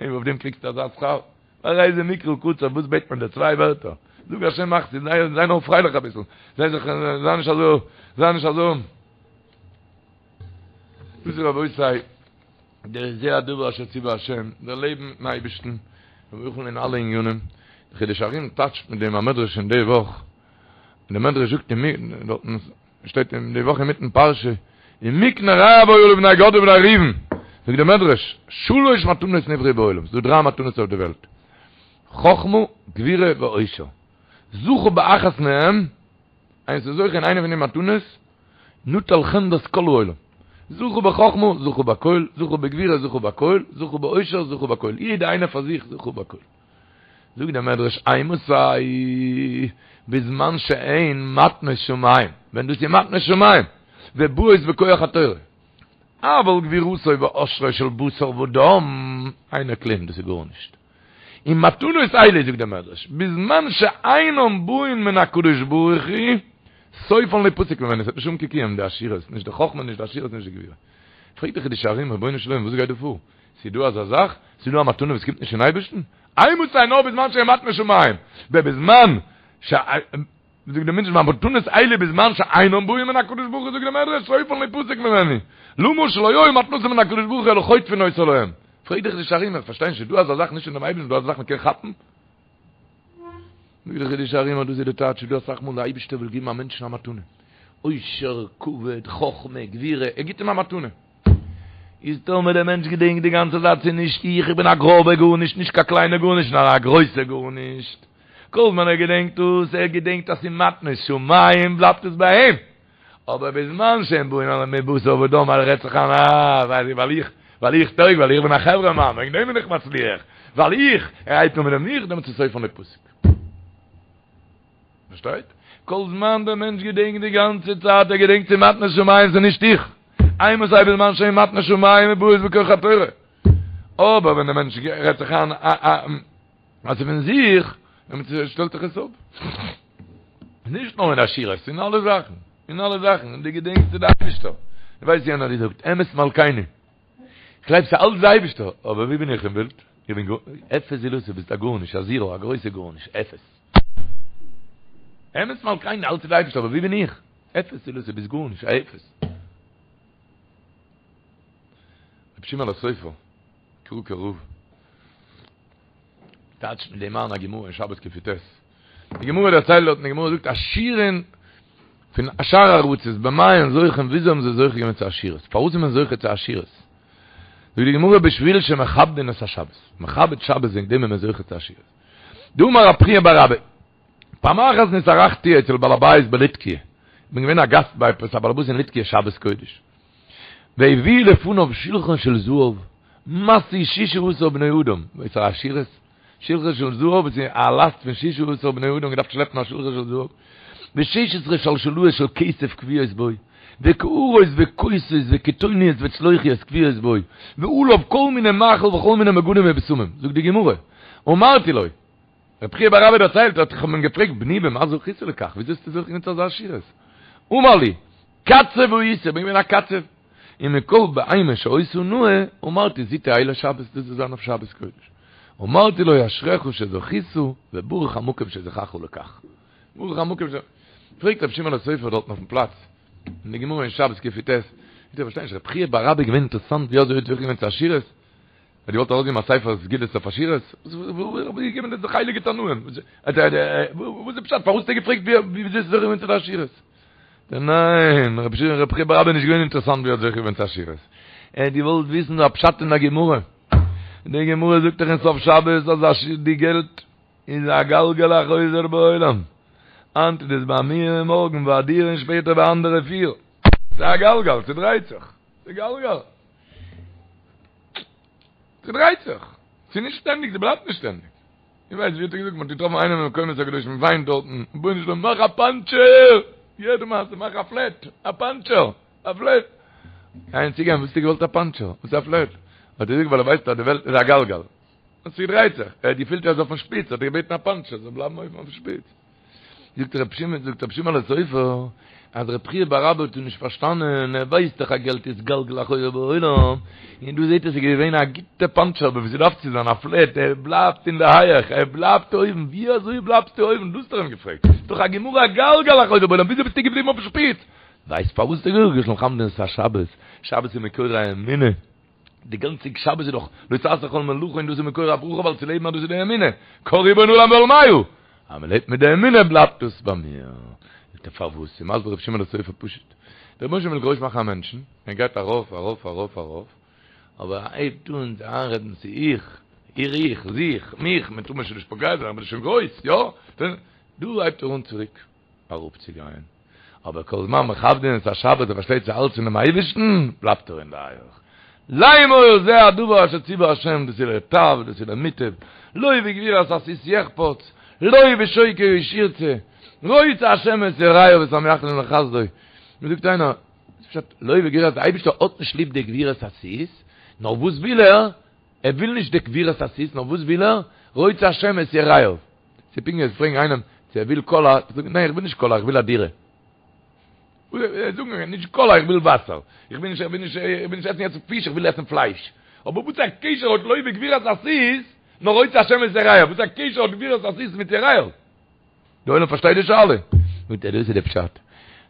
און אויף דעם קריגסטו אזא שכר? והרי זה מקרא קצר, וואס בעט מען דיר? צוויי ווערטער, זאג השם מחסי, זיי זיי נאר פרייליך אביסל, זיי זיך, זיי נישט אזוי, זיי נישט אזוי. דאס איז רבותי, דער זה הדבר אשר ציווה השם, דער לעבן מיטן אייבערשטן, ובכן אין אלע ענינים, דער חידושי הרי"ם טייטשט מיט דעם א מדרש אין די וואך, און דער מדרש זאגט אין דארטן שטייט אין די וואך אינמיטן פרשה, ומקנה רב היה לבני גד ובני ראובן, זאגט דער מדרש, שלש מתנות נבראו בעולם, ס'דא דריי מתנות אויף די וועלט, חכמה, גבורה ועושר, זכה באחת מהם, איינער איז זוכה אין איינע פון די מתנות, נטל חמדת כל העולם, זכה בחכמה, זכה בכל, זכה בגבורה, זכה בכל, זכה בעושר, זכה בכל, יעדע איינער פאר זיך זכה בכל. זאגט דער מדרש אימתי בזמן שהן מתנות שמים, ווען דאס איז מתנות שמים, ובאות בכח התורה, אבל גבורתו ועושרו של בשר ודם, אינו כלום, דאס איז גארנישט. און מתנות אלו, זאגט דער מדרש, בזמן שאינן באין מן הקדוש ברוך הוא, סופן ליפסק ממנו, עס וועט נישט האבן קיין קיום, די עשירות, נישט די חכמה, נישט די עשירות, נישט די גבורה. פרעגט דער חידושי הרי"ם, רבונו של עולם, וואס גייט דא פאר? ס'איז דא אזא זאך? ס'איז דא א מתנה וואס קומט נישט פון אייבערשטן? אימתי נאר בזמן שהן מתנות שמים, ובזמן ש. זאגט דער מדרש מתנות אלו בזמן שאינם באים מן הקדוש ברוך הוא זאגט דער מדרש סופן ליפסק ממנו למה שלא היו מתנתן מן הקדוש ברוך הוא אלא חוטפין אותה להם פרעגט דער חידושי הרי"ם איך פארשטיי נישט איז דא אזא זאך נישט פון דעם אייבערשטן דא אזא זאך מ'קען כאפן? זאגט דער חידושי הרי"ם אז דאס איז די טייטש איז דא אסאך מאל די אייבערשטער וויל געבן א מענטשן א מתנה עושר כבוד חכמה גבורה ער גיבט אים א מתנה איז טאמער דער מענטש געדענקט די גאנצע צייט ס'איז נישט איך, איך בין א גראבע גארנישט, נישט קיין קליינע גארנישט, נאר א גרויסע גארנישט. כל זמן ער געדענקט דאס, ער געדענקט אז ס'איז מתנות שמים, בלייבט עס ביי אים. אבער בזמן שהם באים על מבשר ודם, ער רעדט זיך איין, אה, ווייל איך, ווייל איך טויג, ווייל איך בין א חברה מאן, וועגן דעם בין איך מצליח, ווייל איך, ער הייבט אן מיט דעם איך, דעמאלטס איז סופן ליפסק. פארשטייט? כל זמן דער מענטש געדענקט די גאנצע צייט, ער געדענקט ס'איז מתנות שמים, ס'איז נישט איך. אימתי בזמן שהן מתנות שמים ובאות בכח התורה. אבער ווען דער מענטש רעדט זיך איין אז ס'איז פון זיך, דעמאלטס שטעלט זיך עס אפ. נישט נאר אין עשירות, אין אלע זאכן. אין אלע זאכן. און דו געדענקסט ס'איז די אייבישטער. דו ווייסט יענער האט געזאגט, אמת מלכינו. כ'גלייב ס'איז אלץ די אייבישטער, אבער ווי בין איך אין בילד? איך בין גאר, אפס זולתו, ביסט א גארנישט, א זירא, א גרויסע גארנישט, אפס. אמת מלכינו, אלץ איז די אייבישטער, אבער ווי בין איך? אפס זולתו, ביסט גארנישט, א אפס. רבי שמעון הסופר, קראקער רב, טייטשט מיט דעם איין א גמרא אין שבת קי"ט. די גמרא דערציילט דארט, די גמרא זאגט עשירים פון שאר ארצות במה הן זוכים, וויאזוי האבן זיי זוכה געווען צו עשירות? פארוואס איז מען זוכה צו עשירות? זאגט די גמרא בשביל שמכבדין את השבת, מכבד שבת וועגן דעם איז מען זוכה צו עשירות. דאמר רב חייא בר אבא, פעם אחת נתארחתי אצל בעל הבית בליטקיה, איך בין געווען א גאסט ביי עפעס א בעל הבית אין ליטקיה שבת קודש, והביאו לפניו שלחן של זהב, משוי ששה עשר בני אדם, וואס א עשירות? שלחן של זהב וואס איז א לאסט פון ששה עשר בני אדם געדארפט שלעפן א שלחן של זהב, ושש עשרה שלשלאות של כסף קבועות בו, וקערות וכוסות וקיתוניות וצלוחיות קבועות בו, ועליו כל מיני מאכל וכל מיני מגנים ובשמים. זאגט די גמרא, אמרתי לו, רבי חייא בר אבא דערציילט, האט איך האב אים געפרעגט, בני במה זכית לכך, וויאזוי האסטו זוכה געווען צו אזא עשירות? אמר לי, קצב הייתי, איך בין געווען א קצב, און מכל בהמה שהיתה נאה, אמרתי זו תהא לשבת, דאס זאל זיין אויף שבת קודש. אמרתי לו אשריך שזכית, וברוך המקום שזכך לכך. ברוך המקום ש... פרעגט רבי שמעון הסופר דארטן אויפן פלאץ, אין די גמרא אין שבת קי"ט, איך פארשטיי נישט, רבי חייא בר אבא איז געווען אינטערעסאנט ווי אזוי האט זוכה געווען צו עשירות? האט געוואלט ארויסגעבן א ספר סגולות אויף עשירות? וואס געבן דאס די הייליגע תנאים? וואס איז פשט? פארוואס האט ער געפרעגט ווי אזוי איז זוכה געווען צו די עשירות? ניין, רבי שמעון רבי חייא בר אבא איז נישט געווען אינטערעסאנט ווי ער האט זוכה געווען צו עשירות. ער האט געוואלט וויסן א פשט אין א גמרא. די גמרא זאגט דאך אין סוף שבת אז די געלט איז א גלגל החוזר בעולם. היינט איז עס ביי מיר און מארגן ביי דיר און שפעטער ביי אנדערע פיר. ס'איז א גלגל, ס'דרייט זיך. ס'איז גלגל. ס'דרייט זיך. ס'איז נישט שטענדיג, ס'בלייבט נישט שטענדיג. איך ווייס ווי האט ער געזאגט, מ'האט געטראפן איינעם אין מקומות הקדושים, וויינט דארטן, רבונו של עולם מאך א פאנטשער! יעדע מעשה, מאך א פלעט, א פאנטשער, א פלעט. איינער צוגיין, וואס האסטו געוואלט א פאנטשער? וואס איז א פלעט? האט ער געזאגט ווייל ער ווייסט אז די וועלט איז א גלגל. און ס'דרייט זיך. ער האט געפילט ער איז אויפן שפיץ, האט ער געבעטן א פאנטשער, זאל בלייבן אויבן אויפן שפיץ. זאגט רבי שמעון, זאגט רבי שמעון הסופר, אז רבי חייא בר אבא האט נישט פארשטאנען, ער ווייסט דאך אז געלט איז גלגל החוזר בעולם, און דא זעט ער ס'איז געווען א גוטע פאנטשער, אבער ווי ס'דארף צו זיין א פלעט, ער בלייבט אין די הייעך, ער בלייבט אויבן, ווי אזוי בלייבסטו אויבן, דאס האט ער אים געפרעגט, ס'איז דאך א גמרא גלגל החוזר בעולם, וויאזוי ביסטו געבליבן אויפן שפיץ? ווייסט פארוואס האט ער געזאגט, מכבדין את השבת, שבת איז מקור האמונה. די גאנצע שבת איז דאך לא תעשה כל מלאכה און דאס איז מקור הברכה ווייל צו לעבן אז דאס איז די אמונה, קה ריבון עולם ועלמיא, אז מען לעבט מיט די אמונה בלייבט דאס ביי מיר. זאגט ער פארוואס? איז מסביר רבי שמעון הסופר פשוט, דער רבונו של עולם וויל גרויס מאכן א מענטשן, ער גייט ארויף ארויף ארויף ארויף, אבער ער הייבט אן זיך איינרעדן ס'איז איך, איך איך, זיך, מיך, מען טאר מיר שוין נישט פוגע זיין, איך בין שוין גרויס, יא? דא הייבט ער אן צוריק. אראפצוגיין, אבער כל זמן מכבדין את השבת ער פארשטייט ס'איז אלץ פונעם אייבערשטן, בלייבט ער אין די הייך. לאמור זה הדבר אשר ציווה השם דאס איז לטב דאס איז למוטב, לא בגבורת הסוס יחפץ, לא בשוקי האיש ירצה, רוצה השם את יראיו ואת המייחלים לחסדו. מיר זאגט איינער, וואס פשט לא בגבורת, די אייבערשטער האט נישט ליב די גבורת הסוס, נאר וואס וויל ער? ער וויל נישט די גבורת הסוס, נאר וואס וויל ער? רוצה השם את יראיו. ס'איז פונקט ווי פרעגן איינעם צו ער וויל קאלא, זאגט ניין איך וויל נישט קאלא איך וויל א דירה. זאגן נישט קאלא איך וויל וואסער, איך וויל נישט איך וויל נישט איך וויל נישט עסן יעצט פיש איך וויל עסן פלייש. אבער וואס א קשר האט לא בגבורת הסוס נאר רוצה השם את יראיו, וואס א קשר האט גבורת הסוס מיט יראיו? די עולם פארשטייט די שאלה? זאגט ער דאס איז די פשט,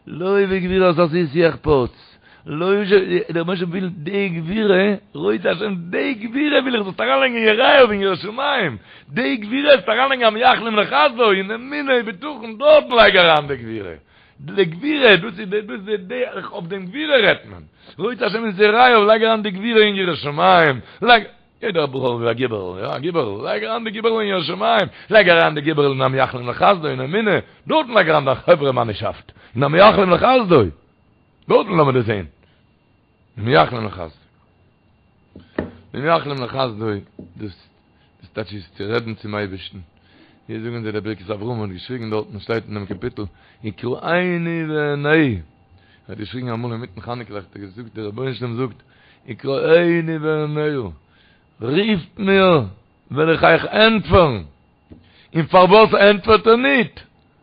לא בגבורת הסוס יחפץ, לא ש, דער רבונו של עולם וויל די גבורה, רוצה השם די גבורה וויל איך זאלסט אריינלייגן אין יראיו אין יראת שמים, די גבורה זאלסט אריינלייגן המייחלים לחסדו אין אמונה ובטחון, דארטן לייג אריין די גבורה, די גבורה, דאס איז די, דאס איז די, אויף דעם גבורה רעדט מען, רוצה השם את יראיו, לייג אריין די גבורה אין יראת שמים, לייג. יעדער בחור וויל א גיבערל, יא א גיבערל, לייג אריין די גיבערל אין יראת שמים, לייג אריין די גיבערל אין המייחלים לחסדו אין אמונה, דארטן לייג אריין דיין חברה מאנישאפט, אין המייחלים לחסדו, דארטן לאמיר דאס זען, המייחלים לחסדו, המייחלים לחסדו, דאס דאס טייטש איז צו רעדן צום אייבערשטן, ווי זאגן זיי דער ברכת אברהם האט געשריגן דארטן שטייט אין דעם קאפיטל, יקראני ואענהו, ער האט געשריגן אמאל אינמיטן חנוכה ליכט, ער האט געזאגט דער רבונו של עולם זאגט, יקראני ואענהו, רופט מיר, וועל איך אייך ענטפערן. און פארוואס ענטפערט ער ניט?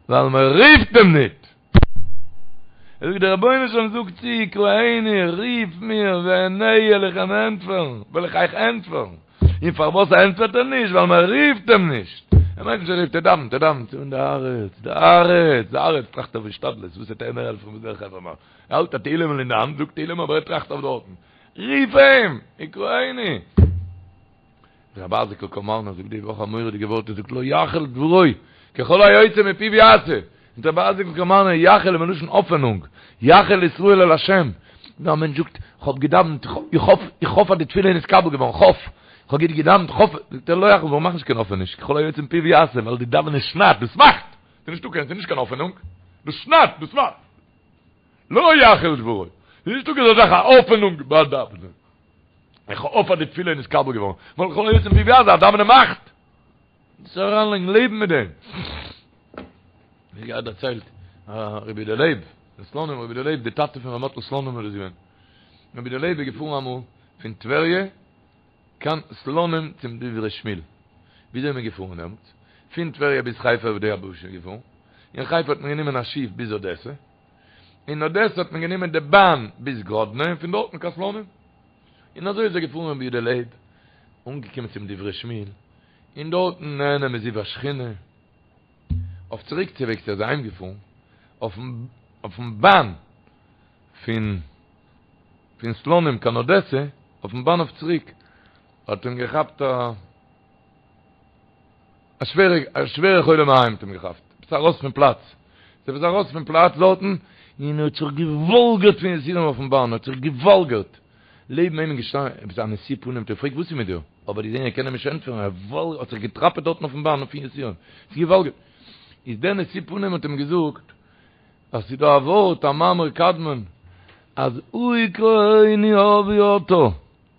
ווייל מען רופט אים ניט. ער זאגט, דער רבונו של עולם זאגט צו, יקראני, רוף מיר, ואענהו, וועל איך אים ענטפערן, וועל איך אייך ענטפערן. און פארוואס ענטפערט ער נישט? ווייל מען רופט אים נישט. ער מיינט נישט ער רופט, ער דאווענט, ער דאווענט, און די הארץ, די הארץ, די הארץ טראכט אויף השתדלות, וואס וועט ער מיר העלפן, וואס דער חברה מאן. ער האלט א תהילים'ל אין די האנט, זאגט תהילים אבער ער טראכט אויף דארטן. רוף אים! יקראני! רבי אייזיק'ל קאמארנער זאגט די וואך א מורא'דיגע ווארט, ער זאגט לא יחל דברו, ככל היוצא מפיו יעשה. זאגט רבי אייזיק'ל קאמארנער, יחל איז מלשון האפענונג, יחל ישראל אל השם. ווען א מענטש זאגט, כ'האב געדאווענט, איך האף, איך האף אז די תפילה איז נתקבל געווארן, כ'האף, כ'האב גוט געדאווענט, כ'האף, זאגט ער לא יחל דברו, מאך נישט קיין האפעניש, ככל היוצא מפיו יעשה, ווייל די דאווענען שניידט, דאס מאכט! ס'איז נישטא קיין, ס'איז נישט קיין האפענונג, דאס שניידט, דאס מאכט. לא יחל דברו. ס'איז נישטא אזא זאך א האפענונג ביי דאווענען. איך האף אז די תפילה איז נתקבל געווארן. ווייל ככל היוצא מפיו יעשה, א דאווענען מאכט. דאס אריינלייגן לעבן מיט דעם. מיר געהאט דערציילט רבי יודא לייב, פון סלאנים, רבי יודא לייב, די טאטע פון ר' מאטל סלאנימער איז געווען. רבי יודא לייב איז געפארן אמאל פון טבריה קיין סלאנים צום דברי שמואל. וויאזוי איז מען געפארן דעמאלטס? פון טבריה ביז חיפה אויף די יבשה געפארן. אין חיפה האט מען גענומען א שיף ביז אדעסע. אין אדעסע האט מען גענומען די באן ביז גראדנע און פון דארטן קיין סלאנים. און אזוי איז ער געפארן רבי יודא לייב, אנגעקומען צום דברי שמואל, און דארטן נהנה מזיו השכינה. אויף צוריק צו וועגס איז ער אהיים געפארן אויפן באן פון פון סלאנים קיין אדעסע, אויפן באן אויף צוריק האט אים געכאפט א א שווערע א שווערע חולי מעיים האט אים געכאפט, עפעס ארויס פון פלאץ, איז עפעס ארויס פון פלאץ דארטן, און ער האט זיך געוואלגערט פון יסורים אויפן באן, האט זיך געוואלגערט, לעבן אים איז געשטאנען עפעס א נשוא פנים האט אים געפרעגט וואס איז מיט דיר? אבער געזען ער קען אים נישט ענטפערן, ער וואלגערט, האט זיך געטראפעט דארטן אויפן באן פון יסורים, זיך געוואלגערט, איז דער נשוא פנים האט אים געזאגט, אז ס'איז דא א ווארט א מאמר קדמון, אז אוי קראוני אבי אתה,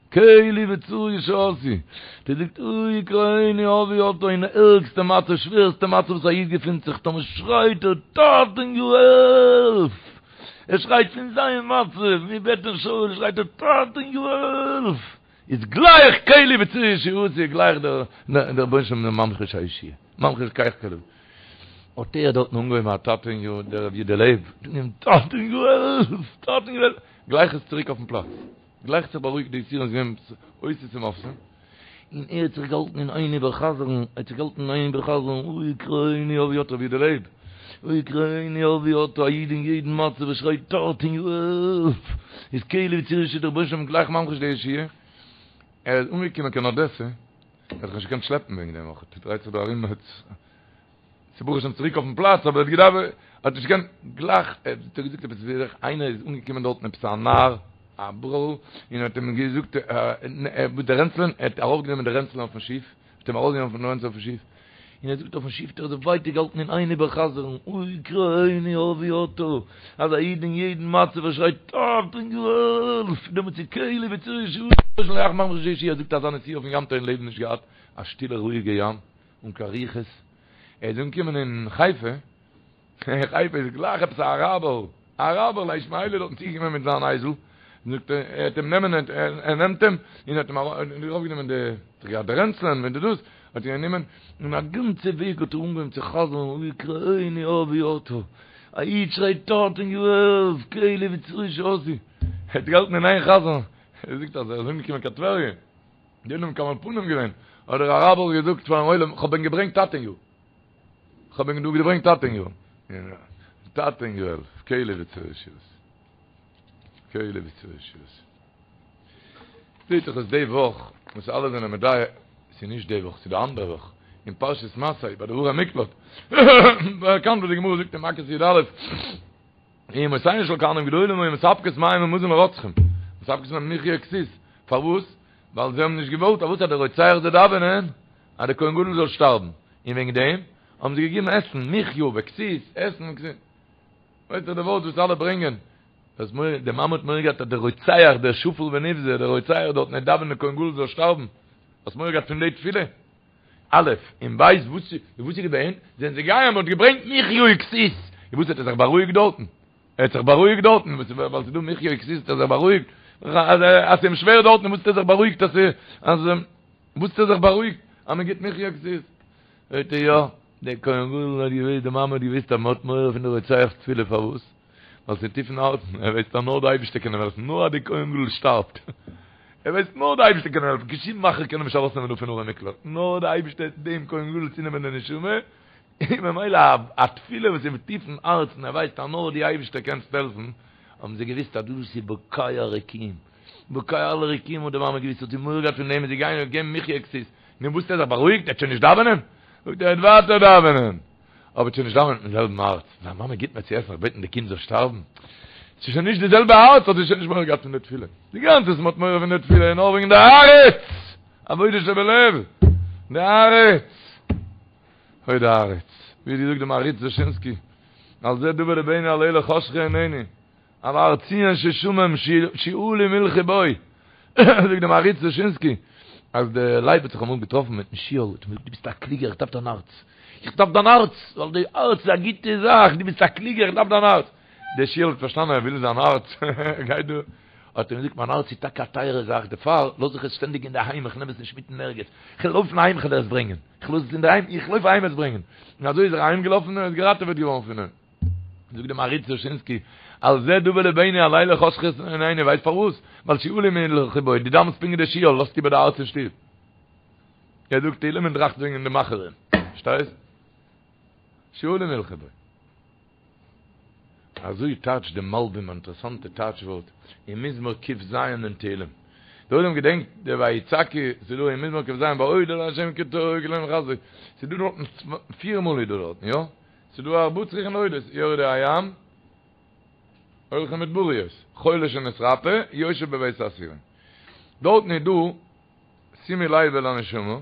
קלי וצור ישועתי, דער זאגט אוי קראוני אבי אתה אין ערגסטע מצב שווערסטע מצב וואס א איד געפינט זיך טאמער שרייט ער טאטעניו העלף! ער שרייט פון זיין מצב מבטן שאול שרייט ער טאטעניו העלף! איז גלייך קלי וצור ישועתי גלייך דער רבונו של עולם ממחיש הישועה ממחיש גלייך קלי האט ער דארטן אנגעהויבן א טאטעניו דער רבי יודא לייב טאטעניו העלף! טאטעניו העלף! גלייך איז צוריק אויפן פלאץ. גלייך זיך בארואיגט די יסורים איז געווען אותות ומופתים, און ער האט זיך געהאלטן אין איין איבערחזרן, ער האט זיך געהאלטן אין איין איבערחזרן, אוי קראוני אבי אתה רבי יודא לייב, אוי קראוני אבי אתה, א איד אין יעדן מצב וואס שרייט טאטעניו העלף, איז קלי וצור ישועתי דער רבונו של עולם גלייך ממחיש די ישועה, ער איז אנגעקומען קיין אדעסע, ער האט זיך נישט געקענט שלעפן וועגן דעם אויך, ער דרייט זיך דא ארום מיט. ס'איז ברוך השם צוריק אויפן פלאץ, אבער ער האט געדארפט, ער האט נישט געקענט, גלייך, ער האט געזאגט עפעס ווי אזוי, איינער איז אנגעקומען דארטן עפעס א נער, א בחור'ל, און האט אים געזאגט, וואס די רענצלען, ער האט ארויפגענומען די רענצלען אויפן שיף, האט אים ארויסגענומען פון די רענצלען אויפן שיף, און ער זאגט אויפן שיף האט ער זיך ווייטער געהאלטן אין איין איבערחזר'ן, אוי קראוני אבי אתה, אז א איד אין יעדן מצב ער שרייט טאטעניו העלף, דעמאלטס איז קלי וצור ישועתי, גלייך ממחיש ישועה, ער זאגט אזא נסיעה אויפן ים האט ער אין לעבן נישט געהאט, א שטילע רואיגע ים. אן קיין רוחות, ער איז אנגעקומען אין חיפה, אין חיפה איז גלייך עפעס א אראבער, א אראבער א ישמעאלי דארטן צוגעקומען מיט זיין אייזל, זאגט ער, ער האט אים נעמען, ער נעמט אים, און האט אים ארויפגענומען די, געהאט די רענצלען מיט די דאס, האט אים גענומען, און א גאנצע וועג האט ער אנגעהויבן צו חזר'ן, אוי קראוני אבי אתה, א איד שרייט טאטעניו העלף, קלי וצור ישועתי, ער האט געהאלטן אין איין חזר'ן, ער זאגט אז ער איז אנגעקומען קיין טבריה. די עולם מקבל פנים געווען, האט דער אראבער געזאגט פארן עולם, כ'האב ענק געברענגט טאטעניו. כ'האב ענק דא געברענגט טאטעניו. טאטעניו העלף, קלי וצור ישועתי. קלי וצור ישועתי. זעהט זיך אז די וואך, וואס אלע זענען מדייק, ס'איז נישט די וואך, ס'איז די אנדערע וואך, אין פרשת מסעי, ביי די ערי מקלט, באקאנט וואס די גמרא זאגט אין מכות י"א, אמותיהן של כהנים גדולים היו מספקות מים ומזון לרוצחים, מספקות להם מחיה וכסות, פארוואס? ווייל זיי האבן נישט געוואלט אז וואס אז דער רוצח זאל דאווענען אז דער כהן גדול זאל שטארבן, און וועגן דעם האבן זיי געגעבן עסן, מחיה וכסות, עסן און כסות. ווייסט דאך די ווארט וואס אלע ברענגען, אז מורא, די מאמע האט מורא געהאט אז דער רוצח, דער שפל ונבזה, דער רוצח דארטן וועט דאווענען דער כהן גדול זאל שטארבן, האסט מורא געהאט פון די תפילה? א', און ב', וואס וואס איז געווען? זענען זיי געגאנגען מ'האט געברענגט מחיה וכסות, און וואס האט ער זיך בארואיגט דארטן? ער האט זיך בארואיגט דארטן, וואס ווייל ס'איז דא מחיה וכסות האט ער זיך בארואיגט, אז אז ס'איז אים שווער דארטן וואס האט ער זיך בארואיגט אז אז וואס האט ער זיך בארואיגט אז מען גיבט מחיה וכסות? זאגט ער יא, דער כהן גדול האט געוואוסט, די מאמע האט געוואוסט אז מ'האט מורא פון די רוצח'ס תפילה פארוואס? ווייל ס'איז טיף אין הארצן, ער ווייסט אז נאר די אייבערשטער קען אים העלפן, נאר אז די כהן גדול שטארבט, ער ווייסט נאר די אייבערשטער קען אים העלפן, קיין שום מאכער קען אים נישט ארויסנעמען דא פון ערי מקלט, נאר די אייבערשטער וועט דעם כהן גדול צונעמען די נשמה, און ממילא א תפילה וואס איז טיף אין הארצן, ער ווייסט אז נאר די אייבערשטער קען העלפן, האבן זיי געוויסט אז דאס איז בוקע רקיעים, בוקע אלע רקיעים האט די מאמע געוויסט, האט זי מורא געהאט פון דעם, איז זי געגאנגען און געגעבן מחיה וכסות, נו וואס האט ער זיך בארואיגט, ער וועט שוין נישט דאווענען? זאגט ער, ער וועט ווייטער דאווענען. אבער שוין נישט דאווענען מיטן זעלבן הארץ, זיין מאמע גיט מיר צו עסן, איך בעט די קינד זאל שטארבן, ס'איז שוין נישט די זעלבע הארץ, האט זי שוין נישט מורא געהאט פון די תפילה, די גאנצע וואס מ'האט מורא פון די תפילה איז נאר וועגן די הארץ, עבודה שבלב, די הארץ, אוי די הארץ, ווי האט געזאגט די מהרי"ץ דושינסקי, על זה דוה לבנו על אלה חשכו עינינו, על הר ציון ששמם שועלים הלכו בו, זאגט די מהרי"ץ דושינסקי. אז די לייב האט זיך אמאל געטראפן מיטן שועל, האט אים געזאגט דו ביסט א קלוגער איך דארף דיין הארץ, איך דארף דיין הארץ, ווייל די הארץ איז א גוטע זאך, דו ביסט א קלוגער איך דארף דיין הארץ. דער שועל האט פארשטאנען ער וויל זיין הארץ, ער גייט דא, האט ער אים געזאגט מיין הארץ איז טאקע א טייערע זאך, דערפאר לאז איך עס שטענדיג אינדערהיים, איך נעם עס נישט מיט אין ערגעץ, איך וועל לויפן אהיים איך וועל עס ברענגען, איך לאז עס אינדערהיים, איך לויף אהיים עס ברענגען, און אזוי איז ער אהיים געלאפן און איז געראטעוועט געווארן פון אים. זאגט די מהרי"ץ דושינסקי, על זה דוה לבנו הלילה חשכות עינינו, ווייסט פארוואס? ווייל שועלים הלכו בו, דו דאווענסט פונקט ווי דער שועל, לאזט איבער די הארץ אין שטוב. ער זאגט תהילים און טראכט וועגן די מאכערים, פארשטייסט? שועלים הלכו בו. אזוי טייטשט די מלבים א אינטערעסאנטע טייטש ווארט אין מזמור ק"ז אין תהילים. דער עולם געדענקט די ויצעקו, ס'איז דא אין מזמור ק"ז ביי אודה לה' כי טוב כי לעולם חסדו, ס'איז דא דארטן פיר מאל איז דא דארטן, יא? ס'איז דא ארבעה צריכין להודות, יורדי הים, הולכי מדבריות, חולה שנתרפא, יושב בבית האסורים. דארטן איז דא, שימו לב אל הנשמה,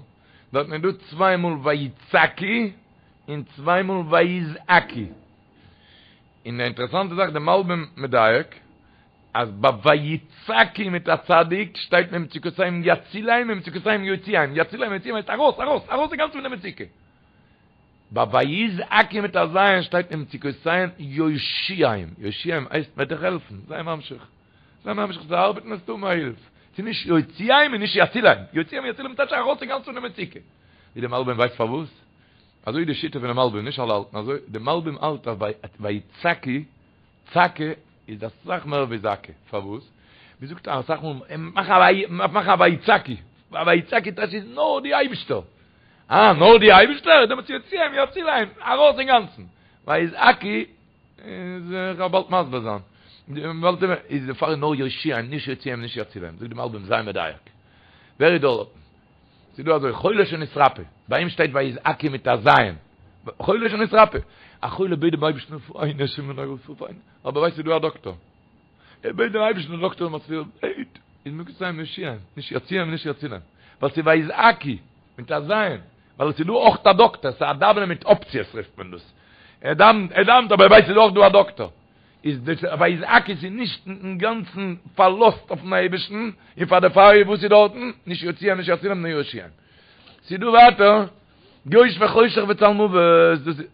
דארטן איז דא צוויי מאל ויצעקו און צוויי מאל ויזעקו. און די אינטערעסאנטע זאך, די מלבים מדייק, אז ביי ויצעקו מיט א צדיק שטייט ממצוקותיהם יצילם ממצוקותיהם יוציאם, יצילם יוציאם הייסט ארויס, ארויס, ארויס אינגאנצן פון די מצוקה. ביי ויזעקו מיט א ז' שטייט ממצוקותיהם יושיעם, יושיעם הייסט מ'וועט דיך העלפן, זיי ממשיך, זיי ממשיך צו ארבעטן וועסטו האבן א הילף, ס'איז נישט יוציאם און נישט יצילם, יוציאם יצילם טייטש ארויס אינגאנצן פון די מצוקה. ווי די מלבים ווייסט פארוואס? אזוי איז די שיטה פונעם מלבים, נישט אלע האלטן אזוי, די מלבים האלט אז ביי ויצעקו, צעקה איז אסאך מער ווי זעקה, פארוואס? מ'זאגט אסאך מאל, מאך א ויצעקו, א ויצעקו טייטש איז נאר די אייבישטער, אה, נאר די אייבישטער? דעמאלטס יוציאם יצילם, ארויס אינגאנצן. ויזעקו, איז איך וועל באלד מסביר זיין. איז דערפאר נאר יושיעם, נישט יוציאם נישט יצילם. זאגט די מלבים זיי מדייק. ווער איז דארטן? ס'איז דא אזוי, חולה שנתרפא, ביי אים שטייט ויזעקו מיט א ז'. חולה שנתרפא. א חולה בעט דעם אייבערשטן רפאנו השם רפאנו. אבער ווייסט ס'איז דא א דאקטאר. ער בעט דעם אייבערשטן דער דאקטאר זאל מצליח בעט איז ממצוקותיהם יושיעם, נישט יוציאם נישט יצילם, ווייל ס'איז ויזעקו מיט א ז', ווייל עס איז דא אויך א דאקטאר, ס'איז א דאווענען מיט אפציעס רופט מען דאס, ער דאווענט ער דאווענט אבער ער ווייסט ס'איז אויך דא א דאקטאר, איז דאס ויזעקו איז נישט אינגאנצן פארלאזט אויפן אייבערשטן, און פאר דערפאר איז וואס איז דארטן, נישט יוציאם נישט יצילם נאר יושיעם. ס'איז דא ווייטער יושבי חושך וצלמוות, דאס איז.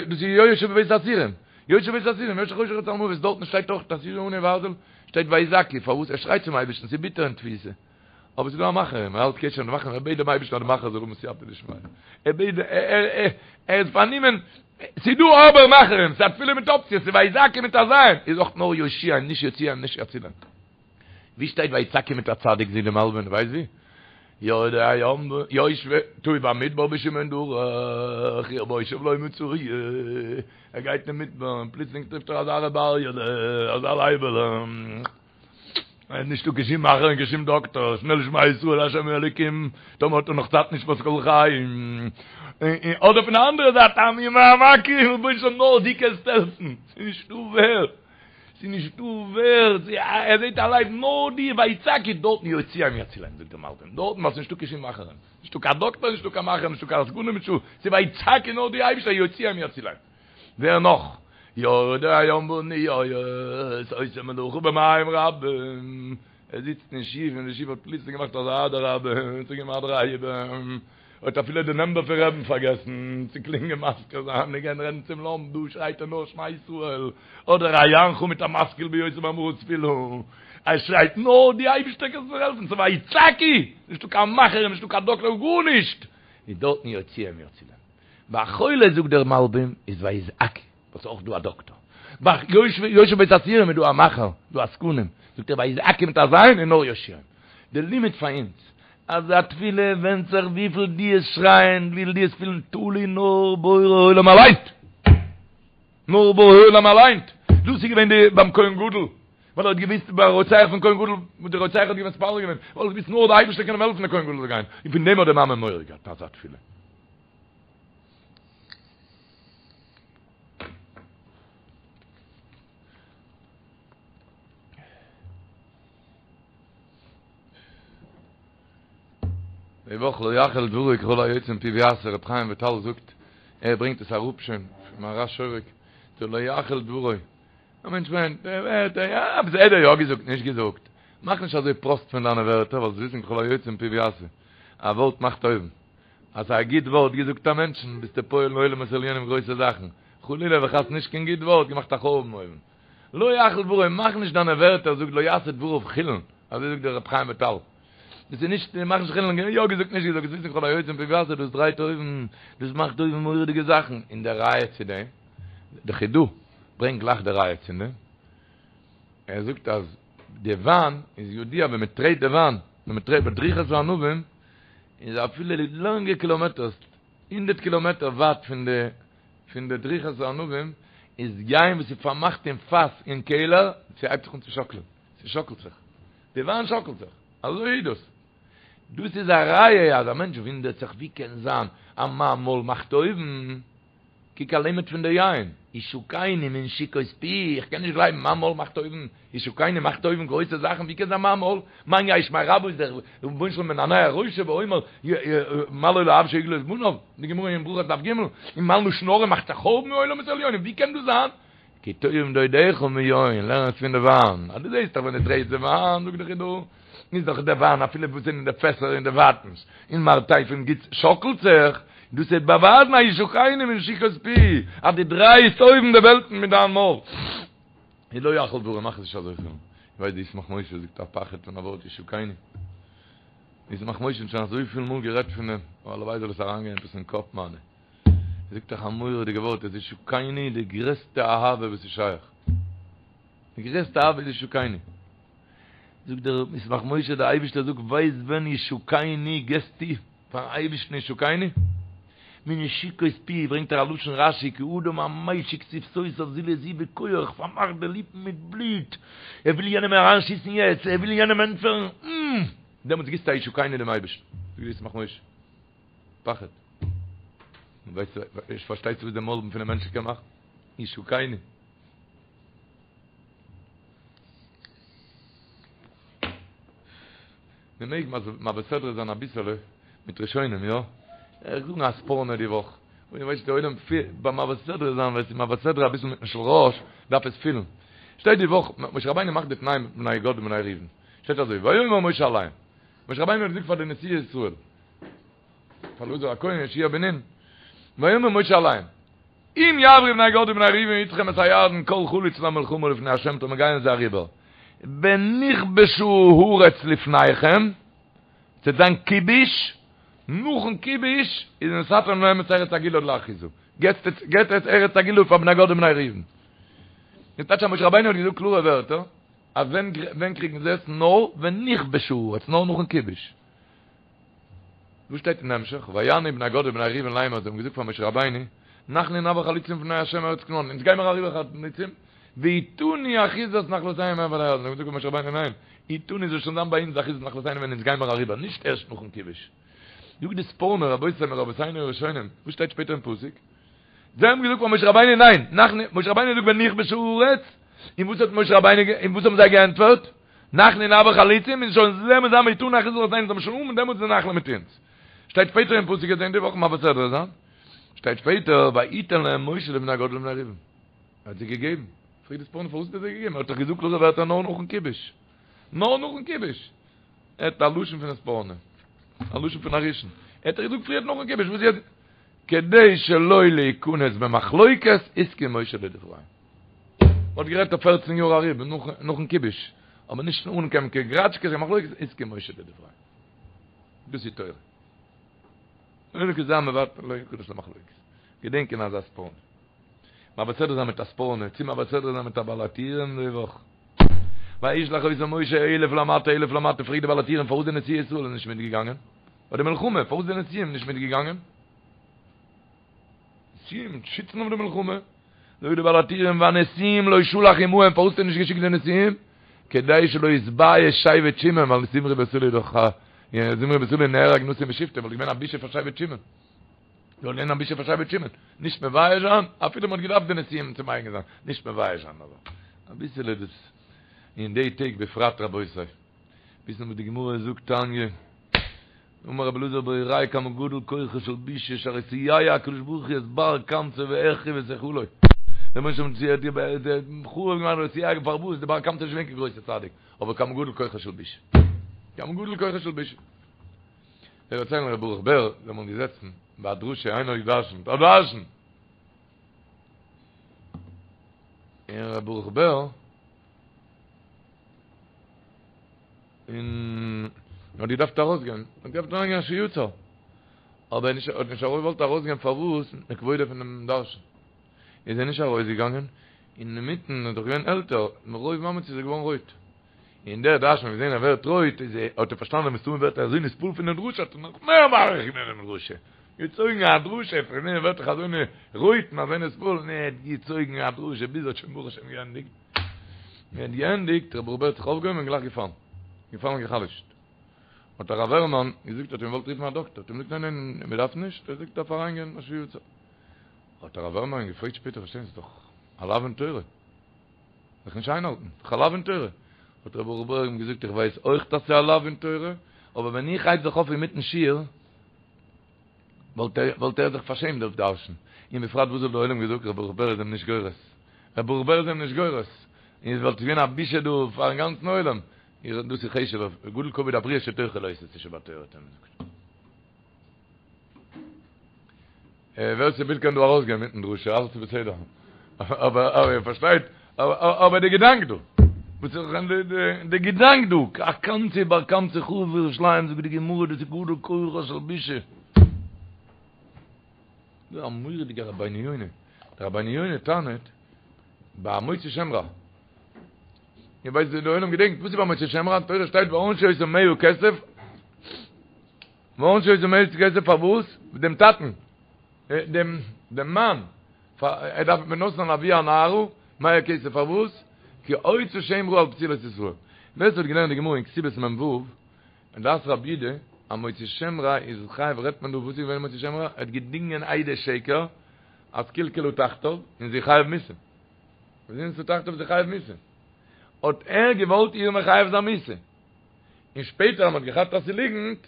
דאס איז יושב בבית האסורים, יושב בבית האסורים, יושבי חושך וצלמוות, דארטן שטייט אויך תשישו עני וארזל, שטייט ויזעקו, פארוואס ער שרייט צום אייבערשטן, ס'איז ביטער אין תפיסה, אבער ס'איז דא א מאכער, ער האלט קשר מיט די מאכער, ער בעט דעם אייבערשטן אז די מאכער זאל האבן סייעתא דשמיא, ער בעט, ער איז פארנומען, ס'איז דא אבער מאכערים, ס'איז א תפילה מיט אפציעס, ס'איז ויזעקו מיט א ז', איז אויך נאר יושיעם, נישט יוציאם, נישט יצילם. ווי שטייט ויצעקו מיט א צדיק זאגט די מלבים ווייסט ווי? יורדי הים יושבי תעו במדבר בישימון דרך עיר מושב לא מצאו ער גייט אין מדבר און פלוצלינג טרעפט ער אזא ר' אריה'לע אזא לייבעלע נישטא קיין שום מאכער און קיין שום דאקטאר שנעל שמע ישראל השם אלוקים טאמער האט ער נאך צייט נשמת כל חי אדער פון די אנדערע זייט ממעמקים רבונו של עולם נאר דו קענסט העלפן ס'איז נישטא ווער ס'איז נישטא ווער, ער זעט א לייב נאר די ויצעקו דארטן יוציאם יצילם זאגט דער מלבים, דארטן ווייל ס'איז נישטא קיין שום מאכערים, נישטא קיין דאקטער נישטא קיין מאכער נישטא קיין עסקנים נישטא, ס'איז ויצעקו נאר די אייבישטער יוציאם יצילם, ווער נאך? יורדי הים באניות עושה מלאכה במים רבים, ער זיצט אין שיף און די שיף האט פלוצלינג געמאכט אזא אדרבה, צוגעגעבן א דריי איבער. האט אפילו די נאמבער פון רעבן פארגעסן צו קלינגען מזכיר זיין און גיין רעדן צום לאמפ, דא שרייט ער נאר שמע ישראל, אדער היענך מיט א משכיל ביותר מאמרה תפילה, ער שרייט נאר די אייבישטער קענסט מיר העלפן, ס'איז ויצעקו, נישטא קיין מאכער נישטא קיין דאקטער גארנישט, איז דארטן יוציאם יצילם. ביי חולה זאגט דער מלבים איז ויזעקו. וואס איז אויך דא א דאקטאר. ביי יושב בית האסורים איז דא א מאכער, דא עסקנים, זאגט ער ויזעקו מיט א ז' און נאר יושיעם. די לימוד פאר אונז, אז א תפילה ווענדט זיך וויפיל דו וועסט שרייען, וויפיל דו וועסט פילן תלוי נאר בורא עולם אליין. נאר בורא עולם אליין. דאס איז געווען די ביים כהן גדול, ווייל ער האט געוויסט ביי רוצח פון כהן גדול, וואס די רוצח האט געווען מתפלל געווען, ווייל ער האט געוויסט נאר די אייבערשטער קען אים העלפן די כהן גדול זאל גיין, און פון דעם האט די מאמע מורא געהאט אזא תפילה. די וואך לא יחל דברו ככל היוצא מפיו יעשה ר' חיים וויטאל זאגט ער ברענגט עס אראפ שוין פון מהר"ש שורק דער לא יחל דברו א מענטש מיינט ער ווערט יא עפעס האט ער יא געזאגט נישט געזאגט. מאך נישט אזוי פראסט פון דיינע ווערטער, ווייל זאלסט וויסן כל היוצא מפיו יעשה. א ווארט מאכט אויבן. אז ס'איז א גוט ווארט געזאגט א מענטשן, ביסטו פועל אין עולמות עליונים גרויסע זאכן. חלילה וחס נישט קיין גוט ווארט, געמאכט א חורבן אויבן. לא יחל דברו, מאך נישט דיינע ווערטער, זאג לא יעשה דבריו חולין, אזוי זאגט דער רבי חיים וויטאל. דאס איז נישט, מאך נישט חולין, יא געזאגט נישט געזאגט, זאלסט וויסן כל היוצא מפיו יעשה, דאס דרייט אויבן, דאס מאכט אויבן מורא'דיגע זאכן, און די ראיה צו דעם, די חידא ברענגט גלייך די ראיה צו דעם, ער זאגט אז די וויין איז ידוע ווען מען טרעט די וויין, ווען מען טרעט בדריכת הענבים, איז אפילו לאנגע קילאמעטערס, הונדערט קילאמעטער ווייט פון די פון די דריכת הענבים, איז יין וואס איז פארמאכט אין פאס אין קעלער, ס'הייבט זיך אן צו שאקלען, ס'שאקלט זיך, די וויין שאקלט זיך, אזוי איז דאס. דאס איז א ראיה אז א מענטש וואונדערט זיך ווי קען זיין אז מיין מויל מאכט אויבן, קוק א לימוד פון די יין, ישקני מנשיקות פי, איך קען נישט גלייבן, מיין מויל מאכט אויבן, ישקני מאכט אויבן גרויסע זאכן, ווי קען זיין מיין מויל, מיין יהא שמיה רבא איז דער רבונו של עולם מנענע ראשו ואומר מה לו לאב שהגלה את בניו, די גמרא אין ברכות דף ג', און מיין לשון הרע מאכט א חורבן עולמות עליונים, ווי קען דאס זיין? כי טובים דודיך מיין, לערן עס פון די וויין, אז דו זעסט דאך ווען דו טרעטסט די וויין, זאגט די חידא, איז דאך די וויין אפילו וואס אין די פעסער אין די ווייטנס, אין מרתפים גוט שאקלט זיך, דאס וועט באווייזן א ישקני מנשיקות פי, אז דו דרייסט אויבן די וועלטן מיט דיין מויל. איז לא יחל דברו, מאך עס נישט אזוי חולין. איך ווייס די ישמח משה זאגט א פחד פון א ווארט ישקני. ישמח משה האט שוין אזויפיל מאל גערעדט פון דעם, אבער הלוואי זאל עס אריינגיין עפעס אין קאפ מיינע. ער זאגט דאך א מורא'דיגע ווארט, עס איז ישקני די גרעסטע אהבה וואס איז שייך. די גרעסטע אהבה איז ישקני. זאגט דער ישמח משה, דער אייבערשטער זאגט, ווייסט ווען ישקני געסטו פארן אייבערשטן ישקני? מנשיקות פי, ברענגט ער א לשון רשי, כאדם המשיק שפתותיו זו לזו בכח, פארמאכט די ליפן מיט בלוט, ער וויל יענעם אריינשיסן יעצט, ער וויל יענעם ענטפערן, און דעמאלטס גיבסטו א ישקני דעם אייבערשטן. זאגט דער ישמח משה. פחד. ווייסט, פארשטייסטו וואס דער מויל פונעם מענטש קען מאכן? ישקני. מען מעג מעביר סדרה זיין אביסעלע מיט ראשונים, יא? איך זאג א ספורנו די וואך, און איך ווייס די עולם ביים מעביר סדרה זיין, ווען ס'איז מעביר סדרה אביסל מיטן של ראש, דארף עס פילן. שטייט די וואך, משה רבינו מאכט די תנאים מיט בני גד ובני ראובן. שטייט אזוי, ויאמר משה אליהם, משה רבינו האט געזאגט פאר די נשיאי ישראל, פאר אלעזר הכהן יהושע בן נון, ויאמר משה אליהם, אם יעברו בני גד ובני ראובן אתכם את הירדן כל חלוץ למלחמה לפני ה' טאמער גייען זיי אריבער, ונכבשה הארץ לפניכם, ס'וועט זיין כיבוש, נאכן כיבוש איז ונתתם להם את ארץ הגלעד לאחוזה, געבט עטס ארץ הגלעד פאר בני גד ובני ראובן. דאס טייטש אז משה רבינו האט געזאגט קלארע ווערטער, אז ווען קריגן זיי עס? נאר ונכבשה הארץ, נאר נאכן כיבוש. וואס שטייט אין המשך? ויענו בני גד ובני ראובן לאמר, זיי האבן געזאגט פאר משה רבינו, אנחנו נעבור חלוצים לפני ה' ארץ כנען, אונז גיימער אריבער חלוצים, ואתנו אחוזת נחלתנו מעבר לירדן, זיי האבן געזאגט פאר משה רבינו, ניין, אתנו זאל שוין זיין ביי אונז אחוזת נחלתנו ווען אונז גיימער אריבער, נישט ערשט נאכן כיבוש. זאגט די ספורנו, רבותי מרבותינו הראשונים, וואס שטייט שפעטער אין פסוק? זיי האבן געזאגט פאר משה רבינו ניין, אנחנו, משה רבינו זאגט ונכבשה הארץ, און וואס האט משה רבינו, און וואס האבן זיי געענטפערט? אנחנו נעבור חלוצים, און שוין זאל מען זיין ואתנו אחוזת נחלתנו, זאל מען שוין האבן דעמאלטס די נחלה מיט אונז. שטייט שפעטער אין פסוק אין די וואך מעביר סדרה זיין, שטייט שפעטער ויתן להם משה לבני גד ולבני ראובן, ער האט זיי געגעבן, פרעגט די ספורנו פארוואס האט ער זיי געגעבן, ער האט דאך געזאגט קלארע ווערטער נאר נאכן כיבוש, נאר נאכן כיבוש, ער האט א לשון פון ספורנו, א לשון פון א ראשון, ער האט דאך געזאגט פריערט נאכן כיבוש, וואס יעצט, כדי שלא להיכנס במחלוקת הסכים משה לדבריהם. מ'האט גערעדט אויף פערצן יאר ארום נאכן כיבוש, אבער נישט אן קיין גראטשקעס און מחלוקת, הסכים משה לדבריהם. דאס איז תורה. און כזה המוותר לא יכנס למחלוקת. געדענקען אזא ספורנו. מעביר סדרה זיין מיט א ספורנו, צו מעביר סדרה זיין מיט א בעל הטורים די וואך. וישלח אותם משה אלף למטה אלף למטה, פרעגט די בעל הטורים פארוואס די נשיאי ישראל איז נישט מיטגעגאנגען? ביי די מלחמה, פארוואס די נשיאים נישט מיטגעגאנגען? נשיאים שיצן אויף די מלחמה. זאגט די בעל הטורים והנשיאים לא שלח עמהם, פארוואס האט ער נישט געשיקט די נשיאים? כדי שלא יתבייש שבט שמעון, ווייל זמרי בן סלוא איז דאך א, זמרי בן סלוא נהרג נשיא משבטו, וואלט געווען א בושה פאר שבט שמעון. זאל געווען א בושה פאר שבט שמעון. נישט מבייש זיין, אפילו מען האט געדארפט די נשיאים צו מגין זיין, נישט מבייש זיין אבער אביסעלע דאס אין די טעג בפרט רבותי. וויסן וואס די גמרא זאגט תניא. אמר רבי אלעזר בריה כמה גדול כוחה של בושה שהרי סייע הקדוש ברוך הוא את בר קמצא והחריב את היכלו. דער רבונו של עולם האט חרוב געמאכט די סייג פארוואס די בר קמצא איז נישט געווען קיין גרויסע צדיק אבער כמה גדול כוחה של בושה כמה גדול כוחה של בושה. זיי דערציילן ר' ברוך בער זיי האבן געזעצן ביי א דרשה איינער האט געדרשנט א דרשן און ר' ברוך בער און האט געדארפט ארויסגיין האט געדארפט אריינגיין אשר יצר אבער נישט האט נישט געוואלט ארויסגיין פארוואס מפני כבודו פונעם דרשן איז ער נישט ארויסגעגאנגען אינמיטן איז דאך געווען עלטער מרוב מאמץ איז ער געווארן רויט און דער דרשן האט געזען ער ווערט רויט איז ער האט ער פארשטאנען מסתמא ווערט ער אזוי נתפעל פון דעם דרשה האט ער נאך מער מאריך געווען דעם דרשה געצויגן א דרשה פון דעם ווערט דאך אזוי רויט און אזוי נתפעל און ער האט געצויגן א דרשה ביז ער האט שוין ברוך השם געענדיגט און ער האט געענדיגט ר' ברוך בער האט זיך אויפגעהויבן און גלייך געפאלן געפאלן און גע'חלש'ט האט הרב הערמאן געזאגט האט אים געוואלט רופן א דאקטער האט אים געזאגט ניין ניין מען דארף נישט ער זאגט דארף אריינגיין אשר יצר האט הרב הערמאן געפרעגט שפעטער פארשטיין ס'איז דאך א לאו אין תורה זיך נישט איינהאלטן, ס'איז דאך א לאו אין תורה. האט ר' ברוך בער אים געזאגט, איך ווייס אויך אז ס'איז א לאו אין תורה, אבער ווען איך הייב זיך אויף אינמיטן שיעור, וואלט ער וואלט ער זיך פארשעמט דער דרשן. און בפרט וואס וואלט דער עולם געזאגט, ר' ברוך בער איז אים נישט גורס. ר' ברוך בער איז אים נישט גורס. און עס וואלט געווען א בושה דא פארן גאנצן עולם. דאס איז חשוב'ער, גדול כבוד הבריות שדוחה לא תעשה שבתורה האט ער אים געזאגט. ווער ס'וויל קען דא ארויסגיין מיטן דרשה, אלעס איז בסדר. אבער אבער איר פארשטייט, אבער די געדאנק דא, וואס איז די געדאנק דא, א קמצא ובר קמצא חרוב ירושלים, זאגט די גמרא, דאס איז גדול כוחה של בושה. דא א מורא'דיגע רבינו יונה, דער רבינו יונה טענה'ט, ביי מוציא שם רע, איר ווייסט די עולם געדענקט, וואס איז ביי מוציא שם רע, אין תורה שטייט וענשו אותו מאה כסף, וענשו אותו מאה כסף פארוואס? דעם טאטן, דעם דעם מאן, ער דארף ונתן לאבי הנערה מאה כסף פארוואס? כי הוציא שם רע על בתולת ישראל. ווער ס'האט געלערנט די גמרא אין כתובות מ"ו, אין דעת רבי יהודה, א מוציא שם רע איז חייב רעדט מען דא וואס איז געווען מוציא שם רע? ער האט געדינגען עדי שקר אז קלקלה תחתיו און זי חייב מיתה. זינתה תחתיו זי חייב מיתה. האט ער געוואלט איר מחייב זיין מיתה. און שפעטער אז מ'האט געכאפט אז ס'איז ליגנט,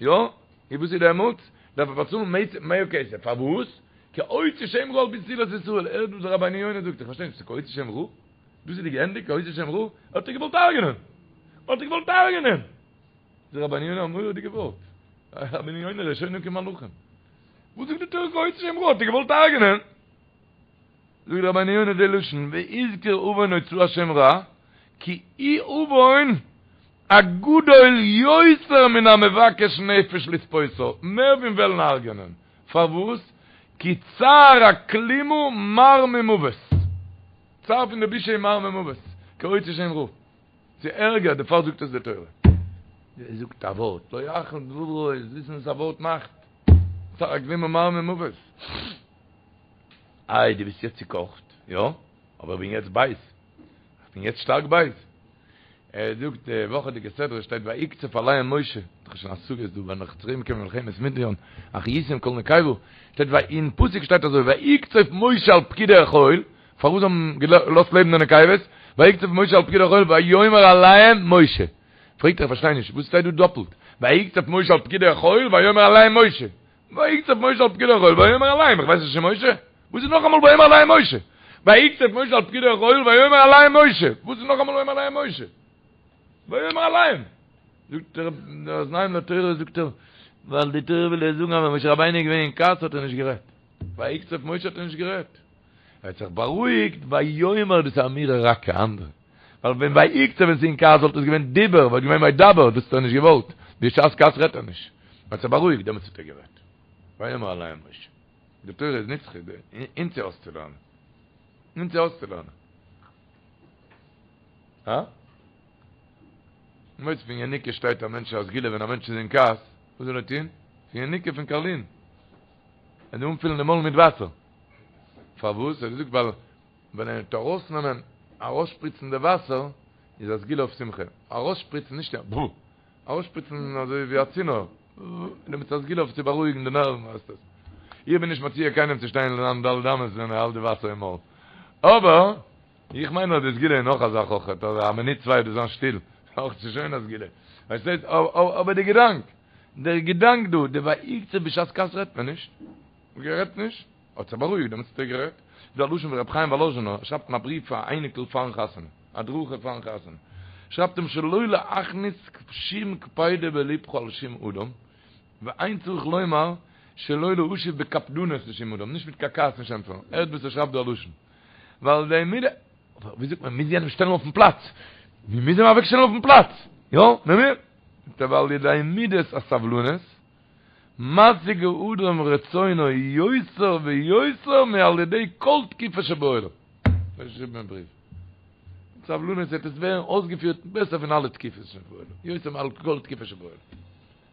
יא, און וואס איז דעמאלטס? דארף ער באצאלן מאה כסף, פארוואס? כי הוציא שם רע על בתולת ישראל, הערט וואס דער רבינו יונה זאגט, איך פארשטיי נישט, ס'איז כי הוציא שם רע? דאס איז די געענדיגט כי הוציא שם רע? ער האט איר געוואלט הרג'נען! ער האט איר געוואלט הרג'נען! זאגט רבינו יונה א מורא'דיגע ווארט, רבינו יונה ראשונים כמלאכים, וואס זאגט די תורה כי הוציא שם רע? האט איר געוואלט הרג'נען? זאגט רבינו יונה די לשון והזכיר עוון הוצאת שם רע כי הוא עוון הגדול יותר מן המבקש נפש לספותה, מער פון וועלן הרג'נען, פארוואס? כי צער הכלימה מר ממוות, צער פון די בושה איז מר ממוות, כי הוציא שם רע, ס'איז ערגער, דערפאר זאגט עס די תורה. ער זאגט א ווארט, לא יחל דברו, וויסן וואס א ווארט מאכט, צער הכלימה מר ממוות. איי דו ביסט יעצט צוקאכט, יא, אבער איך בין יעצט בייז, איך בין יעצט שטארק בייז. ער זאגט די וואכעדיגע סדרה שטייט ויקצוף עליהם משה, דאך שוין א סוגיא דא ווען נאך צוריק קומען מלחמת מדין, והחיתם כל נקבה, שטייט ויי אין פסוק שטייט אזוי ויקצוף משה על פקודי החיל, פארוואס האבן געלאזט לעבן די נקבות, ויקצוף משה על פקודי החיל ויאמר אליהם משה, פרעגט ער איך פארשטיי נישט וואס שטייט דא דאפלט, ויקצוף משה על פקודי החיל ויאמר אליהם משה, ויקצוף משה על פקודי החיל ויאמר אליהם, איך ווייס נישט ס'איז משה? וואס איז נאכאמאל ויאמר אליהם משה? ויקצוף משה על פקודי החיל ויאמר אליהם משה, וואס איז נאכאמאל ויאמר אליהם משה? ויאמר אליהם! זאגט ער, דער אוזניים לתורה זאגט ער, ווייל די תורה וויל דיר זאגן אז ווען משה רבינו איז געווען אין כעס האט ער נישט גערעדט, ויקצוף משה האט ער נישט גערעדט, ער האט זיך בארואיגט, ויאמר דאס איז אמירה רכה אנדערע, ווייל ווען ויקצוף ווען ס'איז אין כעס וואלט עס געווען דיבור, וואלט געווען וידבר, דאס האט ער נישט געוואלט, בשעת כעס רעדט ער נישט. ער האט זיך בארואיגט, דעמאלטס האט ער גערעדט. ויאמר אליהם משה. די תורה איז נצחי, אונז צו אויסצולערנען. אונז צו אויסצולערנען. הא? מויץ פון יניקה שטייט א מענטש א סגולה ווען א מענטש איז אין כעס, וואס זאל ער טון? פון יניקה פון קארלין. ער זאל אנפילן די מויל מיט וואסער. פארוואס? ער האט געזאגט ווייל ווען ער וועט ארויסנעמען, ארויסשפריצן די וואסער, איז א סגולה אויף שמחה. ארויסשפריצן, נישט יא, ארויסשפריצן אזוי ווי א צינור, דעמאלטס איז א סגולה אויף צו בארואיגן די נערוון הייסט עס. איך בין נישט מציע קיינעם צו שטיין אין ד' אמות ווען ער האלט די וואסער אין מויל. אבער, איך מיין אז די סגולה איז נאך א זאך אויכעט, אז א מינוט צוויי דאס זיין שטיל, אויך ס'איז שוין א סגולה. פארשטייסט? אבער די געדאנק, דער געדאנק דא, די ויקצוף בשעת כעס רעדט מען נישט. גערעדט נישט. האט זיך בארואיגט, דעמאלטס האט ער גערעדט. דא א לשון פון רבי חיים וואלאזשינער, ער שרייבט אין א בריוו פאר א אייניקל פארן חתונה, הדרכה פארן חתונה, שרייבט אים שלא להכניס שום קפידה בלבך על שום אדם, ואין צריך לומר שלא להשיב בקפדנות לשום אדם, נישט מיט קיין כעס נישט ענטפערן, הערט וואס ער שרייבט דא א לשון, ועל ידי מידה, אבער ווי זאגט מען, מוז יענעם שטעלן אויפן פלאץ, מען מוז אים אוועק שטעלן אויפן פלאץ, יא, מען מוז, זאגט ער ועל ידי מידת הסבלנות, משיג האדם רצונו יותר ויותר מעל ידי כל תקיפה שבעולם. אזוי געשריבן אין בריוו. מיט סבלנות וועט עס ווערן אויסגעפירט בעסער פון אלע תקיפות שבעולם, יותר מעל כל תקיפה שבעולם.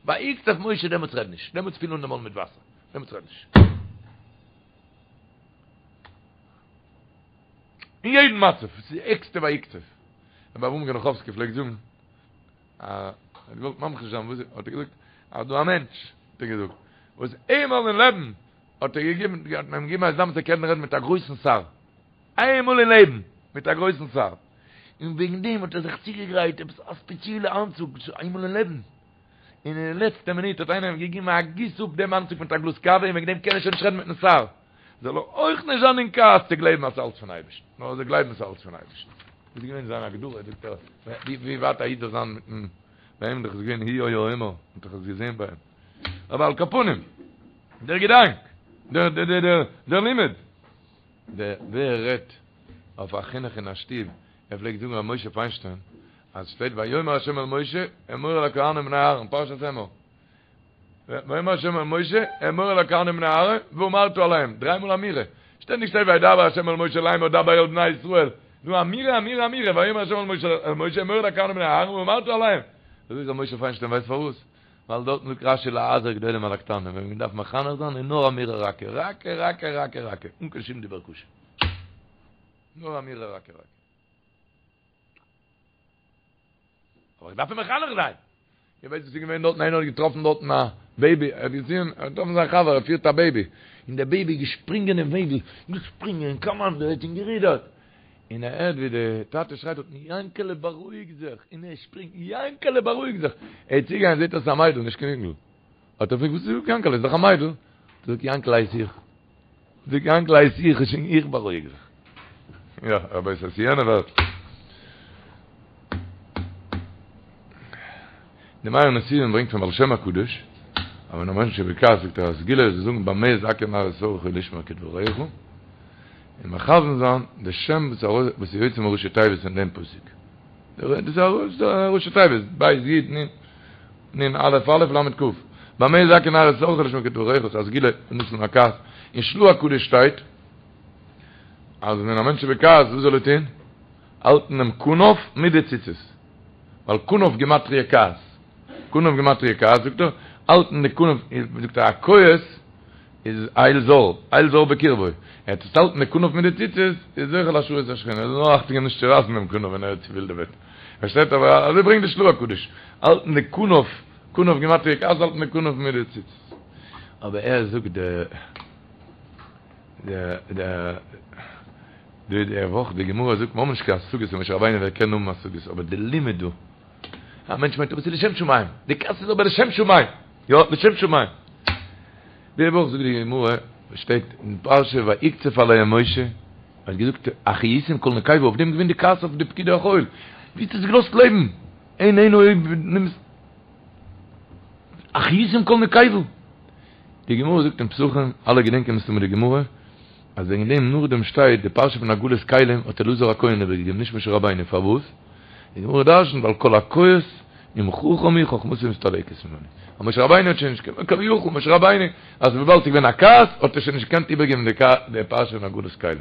ויקצוף משה דעמאלטס רעד נישט, דעמאלטס פיל אן די מויל מיט וואסער, דעמאלטס רעד נישט. אין יעדן מצב, ס'איז די ערגסטע ויקצוף. רבי אברהם גענאכאווסקי פלעגט זאגן, ער האט געוואלט ממחיש זיין וואס האט ער געזאגט, אז דא א מענטש, האט ער געזאגט, וואס איינמאל אין לעבן האט ער געגעבן, האט מען אים געגעבן א הזדמנות צו קענען רעדן מיט א גרויסן שר. איינמאל אין לעבן, מיט א גרויסן שר. און וועגן דעם האט ער זיך צוגעגרייט עפעס א ספעציעלע אנצוג, איינמאל אין לעבן. און אין די לעצטע מינוט האט איינער אים געגעבן א גיס אפ דעם אנצוג מיט א גלאז קאווע און וועגן דעם קען ער שוין נישט רעדן מיטן שר. זאל ער אויך נישט זיין אין כעס צו גלייבן אז ס'אלץ פון אייבערשטן, נאר ער זאל גלייבן ס'אלץ פון אייבערשטן. דאס איז געווען זיין הגדרה, זאגט ער, ווי ווייט א איד זאל זיין מיטן, ביי אים דאך איז געווען הוא היה אומר, מ'האט דאך עס געזען ביי אים. אבער על כל פנים, דער געדאנק, דער דער דער דער דער לימוד, דער ווער רעדט אויף א חינוך אין א שטוב, ער פלעגט זאגן ר' משה פיינשטיין, אז שטייט ויאמר ה' אל משה אמור אל הכהנים בני אהרן, פרשת אמור, ויאמר ה' אל משה אמור אל הכהנים בני אהרן ואמרת אליהם, דריי מאל אמירה, שטענדיג שטייט וידבר ה' אל משה לאמר דבר אל בני ישראל, נו אמירה אמירה אמירה, ויאמר ה' אל משה אמור אל הכהנים בני אהרן ואמרת אליהם, אזוי זאגט ר' משה פיינשטיין ווייסט פארוואס? ווייל דארטן זאגט רשי להזהיר גדולים על הקטנים, ווען מען דארף מחנך זיין איז נאר אמירה רכה, רכה רכה רכה רכה, אן קיין שום דיבור קשה, נאר אמירה רכה רכה. אבער איך דארף אים מחנך זיין. איר ווייסט וואס איז געווען דארטן? איינער האט געטראפן דארטן א בעיבי, ער האט געזען, ער האט געטראפן זיין חבר, ער פירט א בעיבי, און דער בעיבי איז געשפרינגען אין וועגל, געשפרינגען, קאמאנדעט און גערודערט, און ער הערט ווי די טאטע שרייט דארטן, יענקעלע בארואיג זיך, און ער שפרינגט, יענקעלע בארואיג זיך, ער איז צוגעגאנגען זעט ער ס'איז א מיידל, נישט קיין אינגל, האט ער געפרעגט וואס איז יענקעלע, איז דאך א מיידל, זאגט יענקעלע הייס איך. זאגט יענקל הייס איך און איך בארואיג זיך. יא, רבותי, ס'איז יענע וועלט. די מאיר נתיבים ברענגט פון בעל שם הקדוש, אז ווען א מענטש איז בכעס זאגט ער א סגולה איז צו זאגן במה יזכה נער את שרך לשמור כדבריך, און מכוון זיין די שם וואס איז יוצא מראשי תיבות פון דעם פסוק. דאס איז א ראשי תיבות, בית יוד נון. נון א' א' למד כ'. במה יזכה נער את שרך לשמור כדבריך איז א סגולה לנצל מהכעס. אין של"ה הקדוש שטייט אז ווען א מענטש איז בכעס וואס זאל ער טון? האלטן דעם כנף מיט די ציצית. ווייל כנף גימטריא כעס. כנף גימטריא כעס זאגט ער, האלטן די כנף, זאגט ער הכועס איז אל זר, אל זר בקרבו. ער וועט עס האלטן די כנף מיט די ציצית, איז זוכה להשראת השכינה. ער זאל נאר אכטונג געבן נישט צו רייסן דעם כנף ווען ער איז צעווילדעוועט. פארשטייט אבער אזוי ברענגט די של"ה הקדוש, האלטן די כנף, כנף גימטריא כעס האלטן די כנף מיט די ציצית. אבער ער זאגט די די די די די וואך די גמרא זאגט מ'האבן נישט קיין השגות אין משה רבינו ווער קען האבן השגות אבער די לימוד דא א מענטש מיינט אבער ס'איז לשם שמים די כעס איז אבער לשם שמים יא לשם שמים די וואך זאגט די גמרא שטייט אין פרשה ויקצף עליהם משה האט געזאגט החייתם כל נקבה אויף דעם געווען די כעס אויף די פקידי החיל ווי האסט עס געלאזט לעבן אין אין אויב נעמסט החייתם כל נקבה די גמרא זאגט אין פסחים אלע געדענקען מסתמא די גמרא אז וועגן דעם נאכדעם שטייט די פרשה פון הגעלת כלים האט אלעזר הכהן איבערגעגעבן נישט משה רבינו פארוואס די גמרא דרשנט ווייל כל הכועס אם חכם הוא חכמתו מסתלקת ממנו אז משה רבינו האט שוין נישט קיין כביכול משה רבינו אז וויבאלד ס'איז געווען א כעס האט ער שוין נישט געקענט איבערגעבן די פרשה פון הגעלת כלים.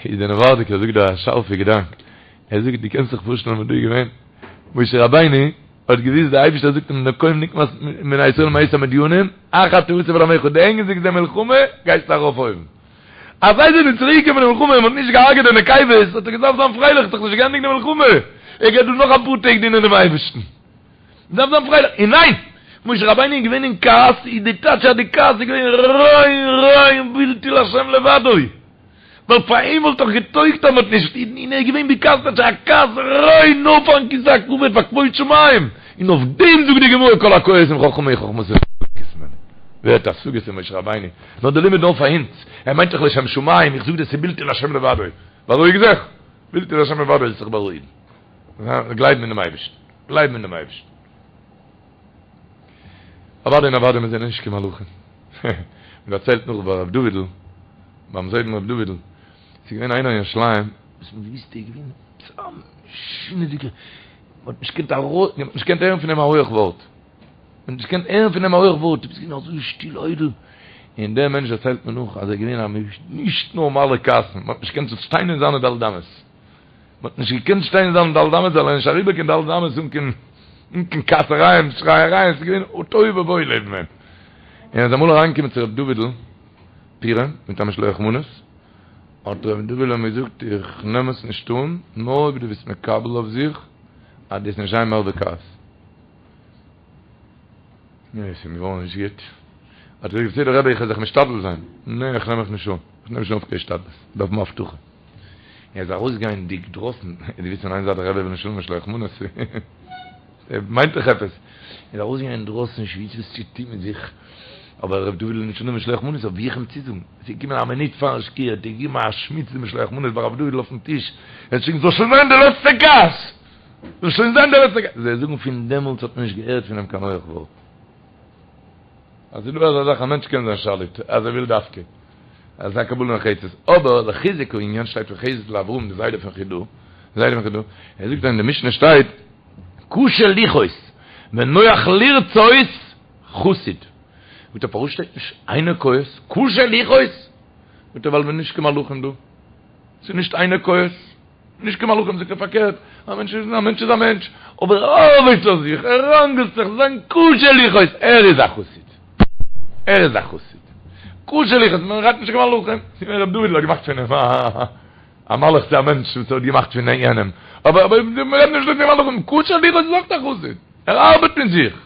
איז דער נאווארדיקער זאגט דא א שארפע געדאנק, ער זאגט דו קענסט זיך פארשטעלן וואס דא איז געווען, משה רבינו האט געוויסט די אייבישטער זאגט אים נקום נקמת בני ישראל מאת המדינים, אחר תאסף אל עמך, דו ענדיגסט די מלחמה גייסטו ארויף אויבן. אז זיי זענען צוריק געקומען פון די מלחמה און מ'האט נישט געהארגעט די נקבות האט ער געדארפט זיין פרייליך, ס'איז דאך נישט געענדיגט די מלחמה, ער גייט דא נאך אפאר טעג דינען דעם אייבערשטן. דארף זיין פרייליך, און ניין! משה רבינו איז געווען אין כעס, איז די טייטש אז די כעס איז געווען ריין ריין בלתי להשם לבדו, ווייל פאר אים וואלט דאך געטויגט אז מ'האט נישט, און ער איז געווען בכעס טייטש א כעס ריין נאר פארן כסא הכבוד פאר כבוד שמים, און אויף דעם זאגט די גמרא כל הכועס אם חכם הוא חכמתו מסתלקת ממנו. ווער האט השגות אין משה רבינו? נאר די לימוד נאר פאר אונז, ער מיינט דאך לשם שמים, איך זאג דיר ס'איז בלתי להשם לבדו, בארואיג זיך, בלתי להשם לבדו זאלסט זיך בארואיגן, גלייבן אינעם אייבערשטן, גלייבן אינעם אייבערשטן. אוודאי און אוודאי מיר זענען נישט קיין מלאכים. מען דערציילט נאך ביי ר' דוד'ל, ביים זיידן ר' דוד'ל, ס'איז געווען איינער אין ירושלים, וואס מען האט געוואוסט ער איז געווען עפעס א משונה'דיגער, מען האט נישט געקענט ארויס, מען האט נישט געקענט הערן פון אים א הויעך ווארט. מען האט נישט געקענט הערן פון אים א הויעך ווארט, ער איז געווען אזוי שטיל איידל, און דער מענטש דערציילט מיר נאך אז ער איז געווען א נישט נארמאלע כעסן, מען האט נישט געקענט שטיין אין זיינע ד' אמות, מען האט נישט געקענט שטיין אין זיינע ד' אמות זאל ער נישט אריבער קיין ד' אמות אן קיין אן קיין כעסערייען שרייערייען, עס איז געווען תוהו ובוהו לעבן אים. און ער איז אמאל אריינגעקומען צו ר' דוד'ל פורים מיט א משלוח מנות, האט ר' דוד'ל אים געזאגט איך נעם עס נישט אן, נאר אויב דו ביסט מקבל אויף זיך אז דו וועסט נישט זיין מער בכעס. נו, עס איז אים געווארן נישט גוט. האט ער געזאגט, בסדר רבי, איך וועל זיך משתדל זיין. נע, איך נעם מיך נישט אן. איך נעם נישט אן אויף קיין השתדלות. איך דארף האבן הבטחה. ער איז ארויסגייענדיג דרויסן, דו ווייסט פון איין זייט דער רבי וויל נישט האבן משלוח מנות, ער מיינט דאך עפעס. ער איז ארויסגעגאנגען אינדרויסן, נישט געוואוסט וואס צו טון מיט זיך. אבער ר' דוד וויל נישט אננעמען משלוח מנות, אבער ווי איך אים צוזאגן? עס איז געקומען א מינוט פארן שקיעה, האט ער געגעבן א שמיץ די משלוח מנות ביי ר' דוד'ל אויפן טיש, ער האט געשריגן, זאל שוין זיין די לעצטע כעס! זאל שוין זיין דער לעצטער כעס. זיי זאגן פון דעמאלטס האט מען נישט געהערט פון אים קיין הויעך ווארט. אז ס'איז דא אזא זאך א מענטש קען זיין שליט אז ער וויל דווקא. אזא קבלה נחרצת. אבער לחיזוק הענין שטייט פון חסד לאברהם די זיידע פון חידא, די זיידע פון חידא, ער זאגט אז אין די משנה שטייט קשה לכעוס ונוח לרצות חסיד. זאגט ער פארוואס שטייט נישט אינו כועס? קשה לכעוס? זאגט ער ווייל מ'איז נישט קיין מלאכים דא. ס'איז נישט אינו כועס. נישט קיין מלאכים זאגט ער פארקערט, א מענטש איז א מענטש איז א מענטש, אבער ער ארבעט אויף זיך, ער ראנגלט זיך, זיין קשה לכעוס, ער איז א חסיד, ער איז א חסיד, קשה לכעוס, מען רעדט נישט קיין מלאכים, ר' דוד'ל האט געמאכט פון אים א מלאך צו א מענטש וואס ער האט געמאכט פון יענעם, אבער אבער מען רעדט נישט דא פון מלאכים, קשה לכעוס איז אויך א חסיד, ער ארבעט מיט זיך.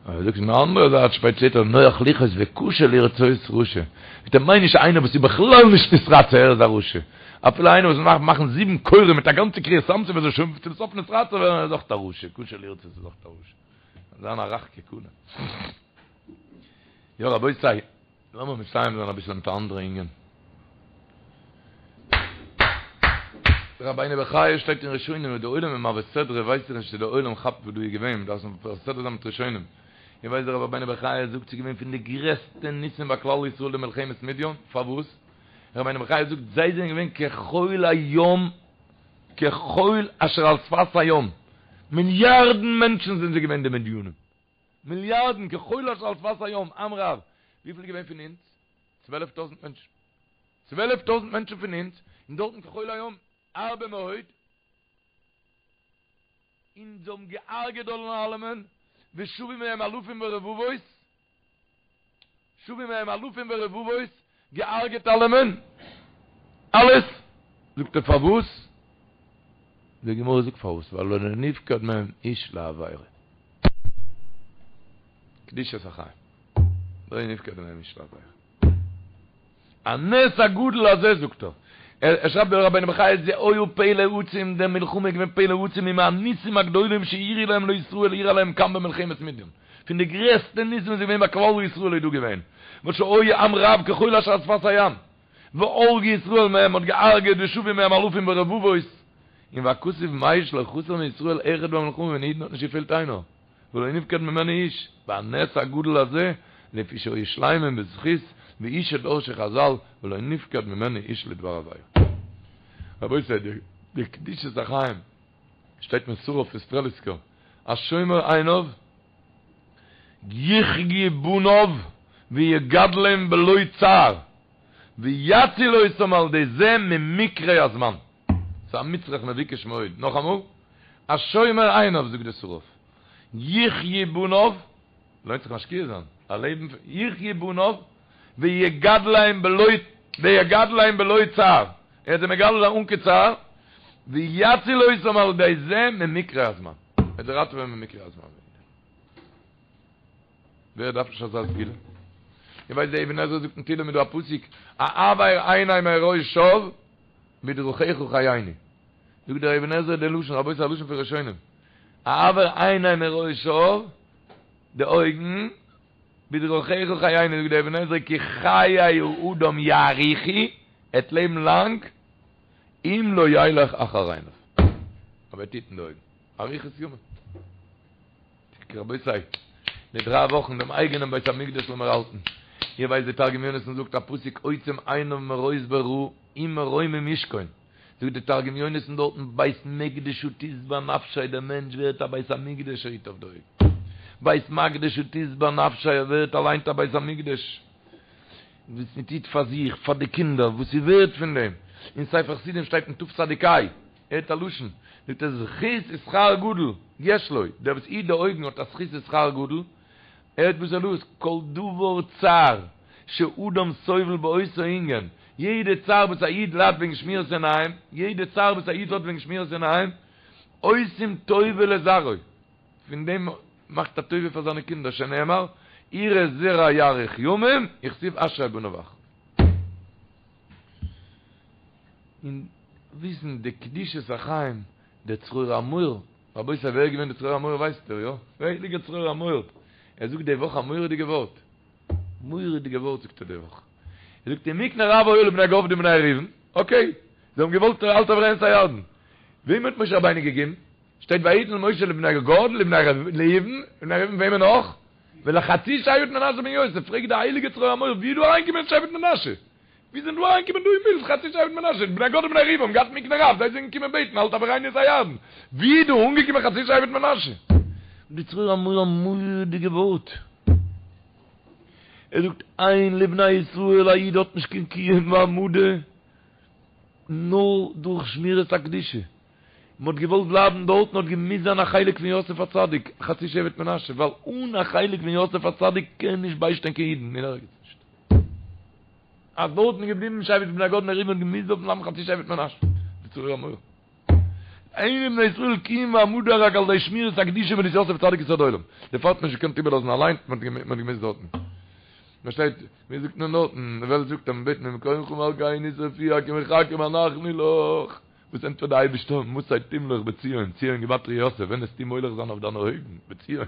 אבער זאגט פון די אנדערע זייט שפעט שטייט נוח לכעוס וקשה לרצות רשע, מיט דעם מיין נישט איינער וואס איז בכלל נישט נתרצה ער איז א רשע, אפילו איינער וואס מאכט מאכן זיבן כורים מיט א גאנצע קריעת ים סוף ער זאל שוין צום סוף נתרצה ווערן ער איז אויך א רשע, קשה לרצות איז אויך א רשע. זיין א רך כקנה. יא רבותי, לאמיר מסיים זיין אביסל מיט א אנדערע ענין. רבינו בחיי שטייט אין ראשונים און די עולם איז מעביר סדרה ווייס איך נישט צו די עולם כאפט וואס דא איז געווען מ'דארף עס מעביר סדרה זיין מיט ראשונים איר ווייסט דער רבינו בחיי זאגט ס'איז געווען פון די גרעסטע ניסים ביי כלל ישראל די מלחמת מדיין פארוואס רבינו בחיי זאגט זיי זענען געווען כחול הים כחול אשר על שפת הים מיליארדן מענטשן זענען זיי געווען די מדינים מיליארדן כחול אשר על שפת הים עם רב וויפיל איז געווען פון אונז? 12,000 מענטשן 12,000 מענטשן פון אונז, און דארטן כחול הים, הרבה מאוד, און זיי האבן געהארגעט דארט אלעמען, ושבו מהם אלפים ורבבות, שבו מהם אלפים ורבבות, געהארגעט אלעמען, אלעס, זאגט ער פארוואס? די גמרא זאגט פארוואס, ווייל לא נפקד מהם איש לעבירה. קדושת החיים. לא נפקד מהם איש לעבירה. הנס הגדול הזה זאגט ער, ער שרייבט דער רבינו בחיי זה היה פלא עצום, די מלחמה איז געווען פלא עצום ומהניסים הגדולים שאירעו להם לישראל אירע להם כאן במלחמת מדיין, פון די גרעסטע ניסים וואס איז געווען ביי כלל ישראל איז דא געווען, וואס שהיו עם רב כחול אשר על שפת הים, והרגו ישראל מהם מ'האט געהארגעט ושבו מהם אלפים ורבבות, און והכתוב מעיד שלא חסר מישראל אחד במלחמה פון אידן האט נישט געפעלט איינער. ולא נפקד ממנו איש, והנס הגדול הזה, לפי שהיו שלימים בזכות, והוא שדרשו חזל, ולא נפקד ממנו איש לדבר עבירה. רבותי, די קדושת החיים, שטייט פון שרף פון סטרעליסקער, השומר עיניו, יחיו בניו ויגדלם בלא צער, ויציל אותם על ידי זה ממקרי הזמן. ס'איז א מצרך מבוקש מאוד. נאכאמאל, השומר עיניו זאגט דער שרף, יחיו בניו, לוינט זיך משקיע זיין, א לעבן פון, יחיו בניו, ויגדלם בלא, ויגדלם בלא צער, ער וועט זיי מגדל זיין אן קיין צער, ויציל אותם על ידי זה ממקרי הזמן, ער וועט זיי ראטעווען ממקרי הזמן. ווער דארף נישט אזא סגולה? איר ווייסט דער אבן עזרא זאגט אין תהילים איז דא א פסוק, העבר עיני מראות שוא בדרכיך חייני. זאגט דער אבן עזרא די לשון, רבותי א לשון פון ראשונים, העבר עיני מראות שוא, די אויגן. בדרכיך חיינו זאגט דער אבן עזרא כי חיי האדם יאריכו, ער וועט לעבן לאנג, אם לא ילך אחר עיניו. אויב ער וועט היטן די אויגן. אריכות ימים. רבותי, די דריי וואכן דעם אייגענעם בית המקדש לאמיר האלטן. איר ווייסט די תרגום יונתן זאגט א פסוק עוצם עיניו מראות ברע ומרומים ישכון. זאגט די תרגום יונתן דארטן בית מקדשא תשבע נפשיה דער מענטש ווערט א בית המקדש ער היט אויף די אויגן. בית מקדשא תשבע נפשיה ער ווערט אליינס א בית המקדש. וואס מען טוט פאר זיך, פאר די קינדער, וואס איז ווערט פון דעם? אין ספר חסידים שטייט אין תצ"ה, הערט א לשון, זאגט ער זכות ושכר גדול יש לו, דער וואס היט די אויגן האט א זכות ושכר גדול, הערט וואס ער לאזט, כל דבר צער שאדם סובל באותו ענין, יעדע צער וואס א איד ליידט וועגן שמירת עיניים, יעדע צער וואס א איד האט וועגן שמירת עיניים, עושים טובה לזרעו. פון דעם מאכט א טובה פאר זיינע קינדער שנאמר יראה זרע יאריך ימים וכתיב אשרי בניו אחריו. און וויסן די קדושת החיים דער צרור המור, רבותי ווער איז געווען דער צרור המור ווייסט איר יא? דער הייליגער צרור המור, ער זאגט די וואך א מורא'דיגע ווארט, מורא'דיגע ווארט זאגט ער די וואך, ער זאגט אם מקנה רב היה לבני גד ובני ראובן, אקעי, זיי האבן געוואלט אל תעבירנו את הירדן, וועם האט משה רבינו געגעבן? שטייט ויתן משה לבני גד לבני ראובן, לבני ראובן וועמען נאך? ולחצי שבט מנשה בן יוסף, פרעגט די הייליגע צרור המור ווי איז דא אריינגעקומען שבט מנשה? ווי זענען דא אריינגעקומען דא אין בילד חצי שבט מנשה? בני גד ובני ראובן האבן געהאט מקנה רב, זיי זענען געקומען בעטן אל תעבירנו את הירדן, ווי איז דא אנגעקומען חצי שבט מנשה? די צרור המור א מורא'דיגע ווארט, ער זאגט אין לבני ישראל א איד האט נישט קיין קיום והעמדה נאר דורך שמירת הקדושה, מען האט געוואלט בלייבן דארטן האט געמוזט זיין א חלק פון יוסף הצדיק, חצי שבט מנשה, ווייל אן א חלק פון יוסף הצדיק קען נישט ביישטיין קיין אידן אין ערגעץ נישט. אז דארטן איז געבליבן שבט בני גד ובני ראובן האט געמוזט דארטן בלייבן חצי שבט מנשה. די צרור המור. אין לבני ישראל קיום והעמדה רק על ידי שמירת הקדושה וואס יוסף הצדיק יסוד עולם. דערפאר האט מען נישט געקענט איבערלאזן אליין, מען האט געמוזט דארטן. פארשטייט, ווי זאגט מען דארטן, די וועלט זאגט אז מען בעט ממקומך מלכנו תופיע כי מחכים אנחנו לך. וואס ענטפערט די אייבערשטער מתי תמלוך בציון, ציון גימטריא יוסף, ווען וועסטו מולך זיין אויף דיינע אויגן, בציון,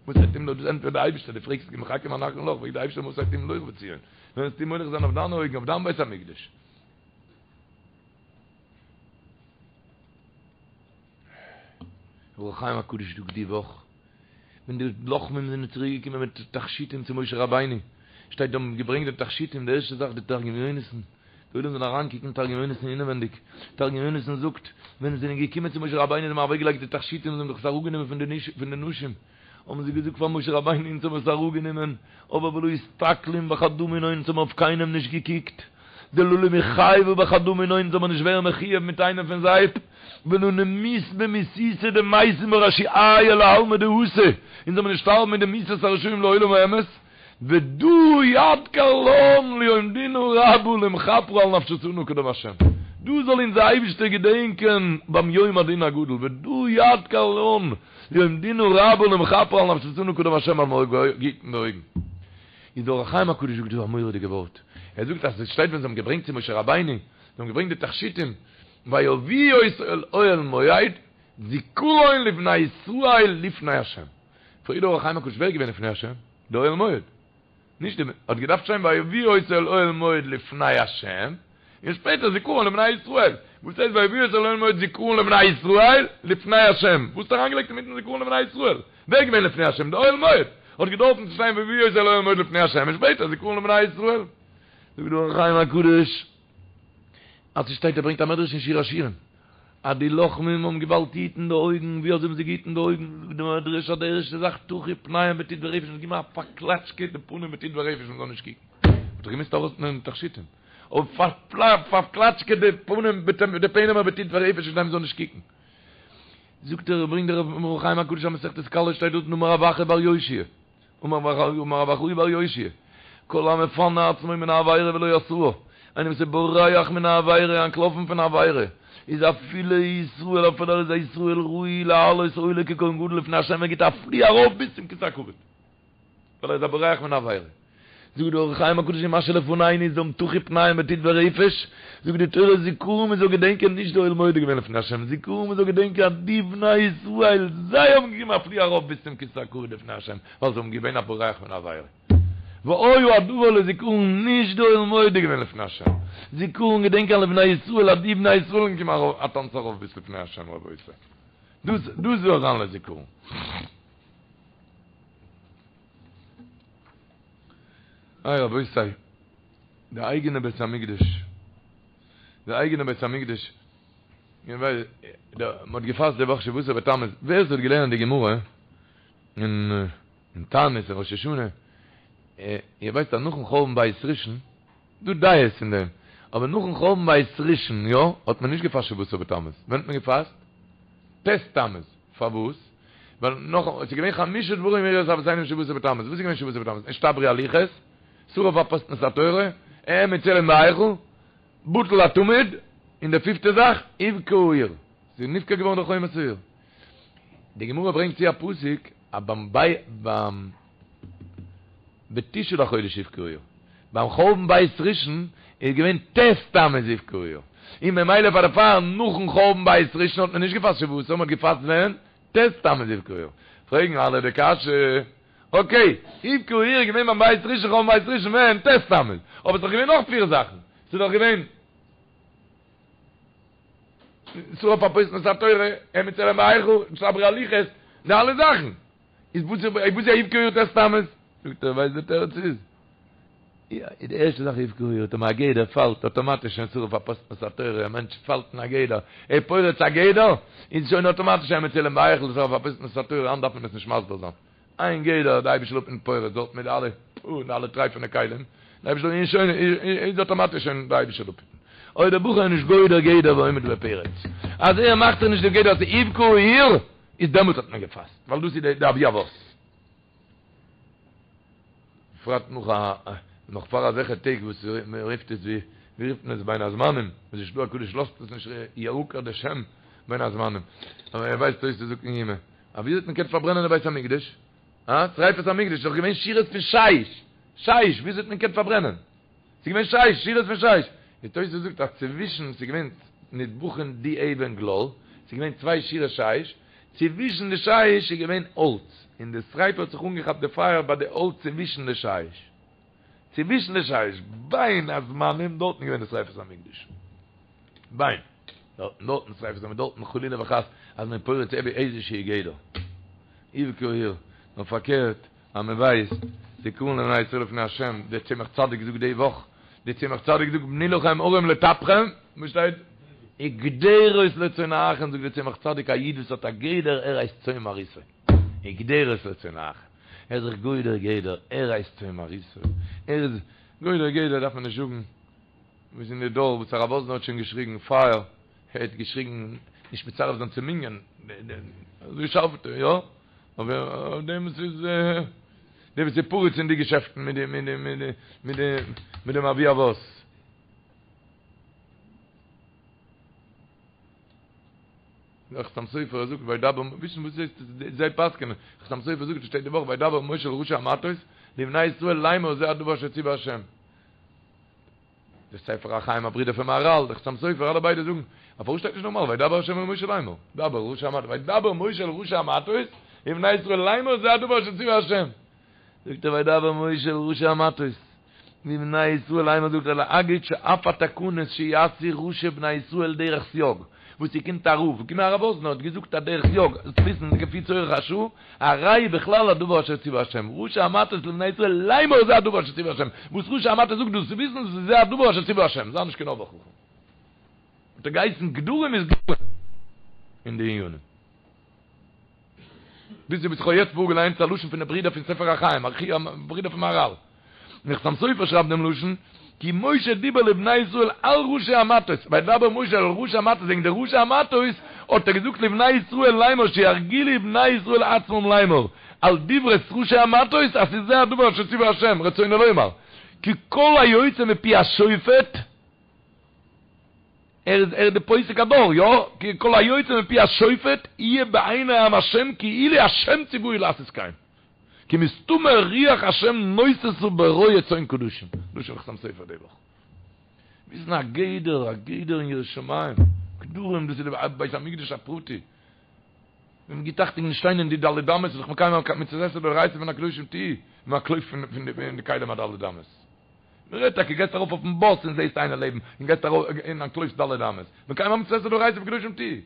מתי תמלוך, דאס ענטפערט די אייבערשטער, דו פרעגסט כי מחכים אנחנו לך, פרעגט די אייבערשטער מתי תמלוך בציון, ווען וועסטו מולך זיין אויף דיינע אויגן, אויף דיין בית המקדש. אור החיים הקדוש זאגט די וואך, ווען די לוחמים זענען צוריק געקומען מיט תכשיטים צו משה רבינו, שטייט זיי האבן געברענגט די תכשיטים, די ערשטע זאך די תרגום יונתן, די עולם זאל אריינקוקן אין תרגום יונתן אינעווענדיג, תרגום יונתן זאגט, ווען זיי זענען געקומען צו משה רבינו זיי האבן אוועקגעלייגט די תכשיטים, זיי האבן דאך עס אראפגענומען פון די נשים, האבן זיי געזאגט פאר משה רבינו אונז האבן עס אראפגענומען, אבער ולא אסתכלין בחדא מינהון אונז האבן אויף קיינעם נישט געקוקט, דלא למיחייבא בחדא מינהון אונז זאל מען נישט ווערן מחויב מיט איינעם פון זיי, ולא נמות במיתותא דמתין בה רשיעיא לעלמא דאתי, אונז זאל מען נישט שטארבן מיט די מיתת הרשעים לעולם האמת, ודא ידכר לן ליום דינא רבא למכפרא על נפשותנא קדם השם, דא זאל אונז דער אייבישטער געדענקען ביים יום הדין הגדול, ודא ידכר לן ליום דינא רבא למכפרא על נפשותנא קדם השם אז מ'האט געהיטן די אויגן. איז דער אור החיים הקדוש זאגט דא א מורא'דיגע ווארט, ער זאגט אז עס שטייט ווען זיי האבן געברענגט צו משה רבינו, זיי האבן געברענגט די תכשיטים, ויביאו אותו אל אוהל מועד, זכרון לבני ישראל לפני השם. פרעגט דער אור החיים הקדוש ווער איז געווען לפני השם? די אוהל מועד. נישט די, האט געדארפט שטיין ויביאו אותו אל אוהל מועד לפני השם, און שפעטער זכרון לבני ישראל. וואס הייסט ויביאו אותו אל אוהל מועד זכרון לבני ישראל לפני השם? וואס האט אריינגעלייגט אינמיטן זכרון לבני ישראל? ווער איז געווען לפני השם? די אוהל מועד. האט געדארפן צו שטיין ויביאו אותו אל אוהל מועד לפני השם און שפעטער זכרון לבני ישראל. זאגט דער אור החיים הקדוש אז ס'שטייט ער ברענגט א מדרש אין שיר השירים אז די לוחמים האבן געוואלט היטן די אויגן, ווי אזוי האבן זיי געהיטן די אויגן? זאגט די מדרש אז די ערשטע זאך טחו פניהם בטיט ורפש, מ'האט געגעבן א פארקלאטשקע די פנים בטיט ורפש מ'זאל נישט קוקן, מ'האט דאך געמוזט ארויסנעמען די תכשיטים, אבער פארקלאטשקעט די פנים די פענעמער בטיט ורפש כדי מ'זאל נישט קוקן. זאגט ער, ברענגט דער אור החיים הקדוש א מסכת כלה שטייט דארט אמר רב אחא בר יאשיה, אמר רב אחאי בר יאשיה, כל המפנה עצמו מן העבירה ולא עשאה, איינער וואס איז בורח מן העבירה, אנטלאפן פון עבירה, איז אפילו ישראל, אפילו ער איז א ישראל ראוי לעלות עולה ככהן גדול לפני השם, ער גיט א פלי ארויף ביז צום כסא הכבוד, ווייל ער איז א בורח מן העבירה. זאגט דער אור החיים הקדוש אין מה שלפנינו איז דאם טחו פניהם בטיט ורפש, זאגט די תורה זכרון מען זאל געדענקען נישט די אוהל מועד איז געווען לפני השם, זכרון מען זאל געדענקען אז די בני ישראל זיי האבן געגעבן א פלי ארויף ביז צום כסא הכבוד לפני השם, ווייל זיי האבן געווען א בורח מן העבירה. והיה הדבר לזכרון נישט די עולם מודה געווען לפני השם, זכרון געדענקען לבני ישראל אז די בני ישראל קומען ארויף א טאנץ ארויף ביז לפני השם רבותי, דאס דאס זאל זיין לזכרון. איי רבותי, די אייגענע בית המקדש, די אייגענע בית המקדש, מען האט געפאסט די וואך שבעה עשר בתמוז, ווער עס האט געלערנט די גמרא אין אין תענית אין ראש השנה, איר ווייסט אז נאכן חורבן בית ראשון, דא דעות אין דעם, אבער נאכן חורבן בית ראשון יא, האט מען נישט געפאסט שבעה עשר בתמוז, ווען האט מען געפאסט? ט' תמוז, פארוואס? ווייל נאך, עס איז געווען חמשה דברים אירעו את אבותינו בשבעה עשר בתמוז, וואס איז געווען שבעה עשר בתמוז? נשתברו הלוחות, שרף אפוסטמוס את התורה, העמיד צלם בהיכל, בטל התמיד, און די פיפטע זאך, הובקעה העיר, ס'איז נבקע געווארן די חומת העיר. די גמרא ברענגט צו א פסוק אז ביים ביי ביים בתשעה לחודש הובקעה העיר, ביים חורבן בית ראשון איז געווען ט' תמוז הובקעה העיר, און ממילא פאר דערפאר נאכן חורבן בית ראשון האט מען נישט געפאסט שבעה עשר, מען האט געפאסט ווען? ט' תמוז הובקעה העיר. פרעגן אלע די קשיא, אקעי, הובקעה העיר איז געווען ביים בית ראשון חורבן בית ראשון ווען? ט' תמוז, אבער ס'איז דאך געווען נאך פיר זאכן, ס'איז דאך געווען. שרף אפוסטמוס את התורה, העמיד צלם בהיכל, נשתברו הלוחות, די אלע זאכן. איז וואס איז וואס איז הובקעה העיר ט' תמוז? זאגט ער, ווייסט די תירוץ איז? די ערשטע זאך הובקעה העיר, טאמער א גדר פאלט אטאמאטיש שוין שרף אפוסטמוס את התורה, א מענטש פאלט אין א גדר, ער פורץ א גדר, איז שוין אטאמאטיש העמיד צלם בהיכל, שרף אפוסטמוס את התורה, היינט דארף מען עס נישט מסביר זיין. איין גדר די אייבישטער זאל אפהיטן פורץ דארט מיט די אלע פו די אלע טרייפענע כלים, די אייבישטער איז שוין איז אטאמאטיש שוין די אייבישטער זאל אפהיטן. אויב דער בחור איז נישט גודר גדר ועומד בפרץ, אז ער מאכט זיך נישט די גדר אז ס'איז הובקעה העיר, איז דעמאלטס האט מען געפאסט, ווייל דאס איז די אבי אבות. בפרט נאך א נאך פאר אזעלכע טעג וואס מען רופט עס ווי ווי רופט מען עס בין הזמנים, וואס די של"ה הקדוש לאזט עס נישט יעקר די שם בין הזמנים, אבער ער ווייסט אויס צו זאגן אין יומא. א ווי האט מען געקענט פארברענען די בית המקדש? אה? שריפת המקדש איז דאך געווען שורות פון שיש! שיש! וויאזוי האט מען געקענט פארברענען? ס'איז געווען שיש, שורות פון שיש! די תוס' זאגט אז צווישן, ס'איז געווען נדבכין די אבן גלל, ס'איז געווען צוויי שורות שיש, צווישן די שיש איז געווען האלץ, און די שריפה האט זיך אנגעכאפט די פייער ביי די האלץ צווישן די שיש. צווישן די שיש, בין הזמנים, דארטן איז געווען די שריפת המקדש. בין. דארטן דארטן שריפת המקדש, דארטן חלילה וחס אז מען פורץ איזה שהוא גדר. הובקעה העיר. נאר פארקערט, אז מען ווייסט, זכרון לבני ישראל לפני השם, דער צמח צדיק זאגט די וואך, דער צמח צדיק זאגט בנו לכם ערים לטפכם, וואס שטייט? וגדרות לצנאכם, זאגט דער צמח צדיק, א איד וואס האט א גדר, ער הייסט צאן מרעיתו. וגדרות לצנאכם. ער איז זיך גודר גדר, ער הייסט צאן מרעיתו. ער איז גודר גדר דארף מען נישט זאגן. וואס אין די דור וואס הרב וואזנער האט שוין געשריגן פייער, ער האט געשריגן נישט מצרף זיין צום מנין, אזוי שארף האט ער, יא, אבער אויף דעם וואס איז, דער וואס איז פורץ אין די געשעפטן מיט די מיט די מיט די מיט די מיט דעם אבי אבות. דער חתם סופר זאגט וידבר, וויסן וואס הייסט זיי פסק'ענען, חתם סופר זאגט עס שטייט די וואך וידבר משה אל ראשי המטות לבני ישראל לאמר זה הדבר אשר ציווה השם. דער ספר החיים א ברודער פון מהרל, דער חתם סופר, אלע ביידע זאגן, א פארוואס שטייט נישט נארמאל וידבר ה' אל משה לאמר, דבר אל ראשי המטות, וידבר משה אל ראשי המטות, לבני ישראל לאמר זה הדבר אשר ציווה ה'. זאגט ער וידבר משה אל ראשי המטות, לבני ישראל לאמר זאגט ער להגיד שאף התקנות שיעשו ראשי בני ישראל דרך סייג, וואס ס'קומט א רב, געקומען הרב וואזנער האט געזאגט א דרך סייג, זאלסט וויסן כפי צורך השעה, הרי בכלל הדבר אשר ציווה השם, ראשי המטות לבני ישראל לאמר זה הדבר אשר ציווה השם, וואס ראשי המטות זאגט דאס צו וויסן דאס איז זה הדבר אשר ציווה השם, זיי נישט קיין אויבער חכם. האט ער געהייסן גדרים איז גדרים אין די עניינים. ביז וואס איך האב יעצט פארגעליינט איז א לשון פון די ברידער פון ספר החיים, ברידער פון מהרל. און חתם סופר שרייבט דעם לשון, כי משה דיבר לבני ישראל על ראשי המטות, וידבר משה אל ראשי המטות, וועגן די ראשי המטות האט ער געזאגט לבני ישראל לאמר שירגילו בני ישראל עצמם לאמר, על דברי ראשי המטות, אז ס'איז זה הדבר אשר ציווה השם, רצונו לומר, כי כל היוצא מפי השופט, ער איז ער איז די פוסק הדור, יא? כי כל היוצא מפי השופט יהיה בעיני עם השם כאילו השם ציווהו לעשות כן. כי מסתמא רוח השם נוססה ברועה צאן קדשים. לשון חתם סופר די וואך. וויסן א גדר, א גדר אין יראת שמים. גדרים דאס איז די בית המקדש הפרטי. מען גיט אכטונג נישט שטיין אין די ד' אמות, איז דאך מקיים א מצות עשה דאורייתא פון הקדושים תהיו, מען אנטלויפט פון די כלים הד' אמות. מען רעדט טאקע, גייסט ארויף אויפן באס און זעסט איינער לעבן, און גייסט ארויף און אנטלויפסט ד' אמות, מקיים א מצות עשה דאורייתא פון קדושים תהיו.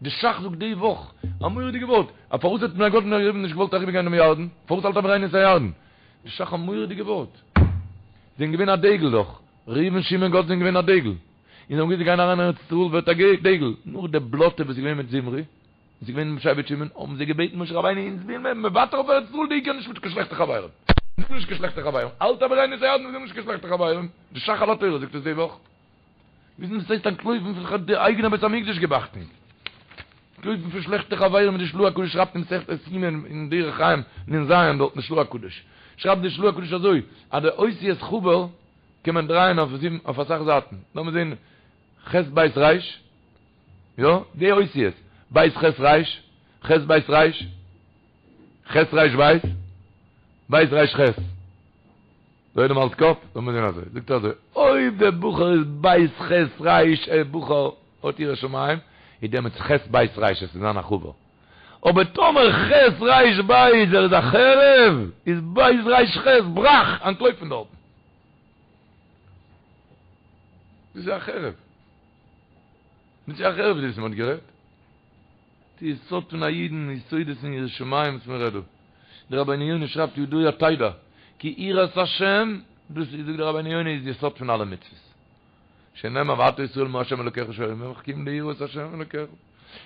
די שך זאגט די וואך א מורא'דיגע ווארט, א פארוואס האט בני גד ובני ראובן נישט געוואלט אריבער גיין דעם ירדן? פארוואס אל תעבירנו את הירדן? די שך א מורא'דיגע ווארט. זיי זענען געווען א דגל דאך, ראובן שמעון גד זענען געווען א דגל. און זיי האבן געוואוסט זיי גייען אריין אין ארץ ישראל ווערט א דגל. נאך די בלאטע וואס איז געווען מיט זמרי, וואס איז געווען מיט שבט שמעון, האבן זיי געבעטן משה רבינו אונז וויל מען מוותר אויף ארץ ישראל די עיקר נישט מיט קיין שלעכטע חברים. אונז וויל נישט קיין שלעכטע חברים. אל תעבירנו את הירדן אונז וויל נישט קיין שלעכטע חברים. די שך על התורה זאגט עס די וואך. וויסן וואס הייסט אנטלויפן פון די אייגענע בית המקדש גיב אכטונג. אנטלויפן פון שלעכטע חברים ווי די של"ה הקדוש שרייבט אין מסכת יומא אין דרך חיים נ"ז דארט אין של"ה הקדוש שרייבט די של"ה הקדוש אזוי אז די אותיות חבר קען מען דרייען אויף זיבן אויף אסאך זייטן לאמיר זעהן ח' בית ר' יא די אותיות בית ח' ר' ח' בית ר' ח' ר' בית בית ר' ח' דער עולם האלט קאפ? לאמיר זען אזוי, זאגט ער אזוי, אויב דער בחור איז בית ח' ר' א בחור האט יראת שמים, איז דעמאלטס ח' בית ר' עס איז זיין א חבר. אבער טאמער ח' ר' בית ער איז א חרב, איז בית ר' ח' ברח, אנטלויף פון דארטן. דאס איז א חרב. דאס איז א חרב וואס מען האט גערעדט. די יסוד פון א אידן, יסודות אין יראת שמים וואס מען רעדט דא. דער רבינו יונה שרייבט ידוע תדע כי יראת השם, דאס איז זאגט דער רבינו יונה איז יסוד פון אלע מצוות. שנאמר ועתה ישראל מה ה' אלוקיך שואל מעמך כי אם ליראה את ה' אלוקיך.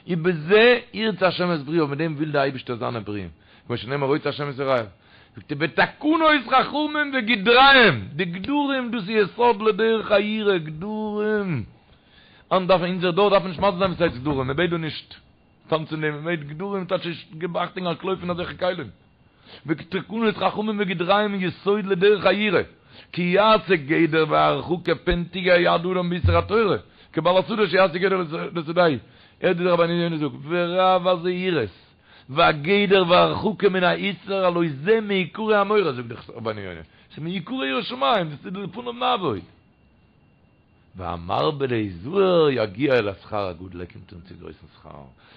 ובזה ירצה ה' את ברואיו, מיט דעם וויל דער אייבערשטער זיינע ברואים. כמו שנאמר רוצה ה' את יראיו. זאגט ער ותקנות חכמים וגדריהם, די גדרים דאס איז יסוד לדרך היראה, גדרים. היינט דארף אונזער דור דארף נישט מסביר זיין וואס הייסט גדרים, מען בעט דא נישט טאנצען דעם, מען בעט גדרים טייטש גיב אכטונג אנטלויף פון אזעלכע כלים. ותקנות חכמים וגדריהם יסוד לדרך היראה, כי יעשה גדר והרחקה פן תגע יד אדם באיסור התורה, כבעל השדה שיעשה גדר לשדהו, הערט ווי דער רבינו יונה זאגט, ורב הזהירות והגדר והרחקה מן האיסור הלא זה מעיקרי המורה זאגט דער רבינו יונה, ס'איז מעיקרי יראת שמים, דאס איז לפניו נעבוד. והמרבה להיזהר יגיע אל השכר הגדול, ער קומט אן צו גרויסן שכר,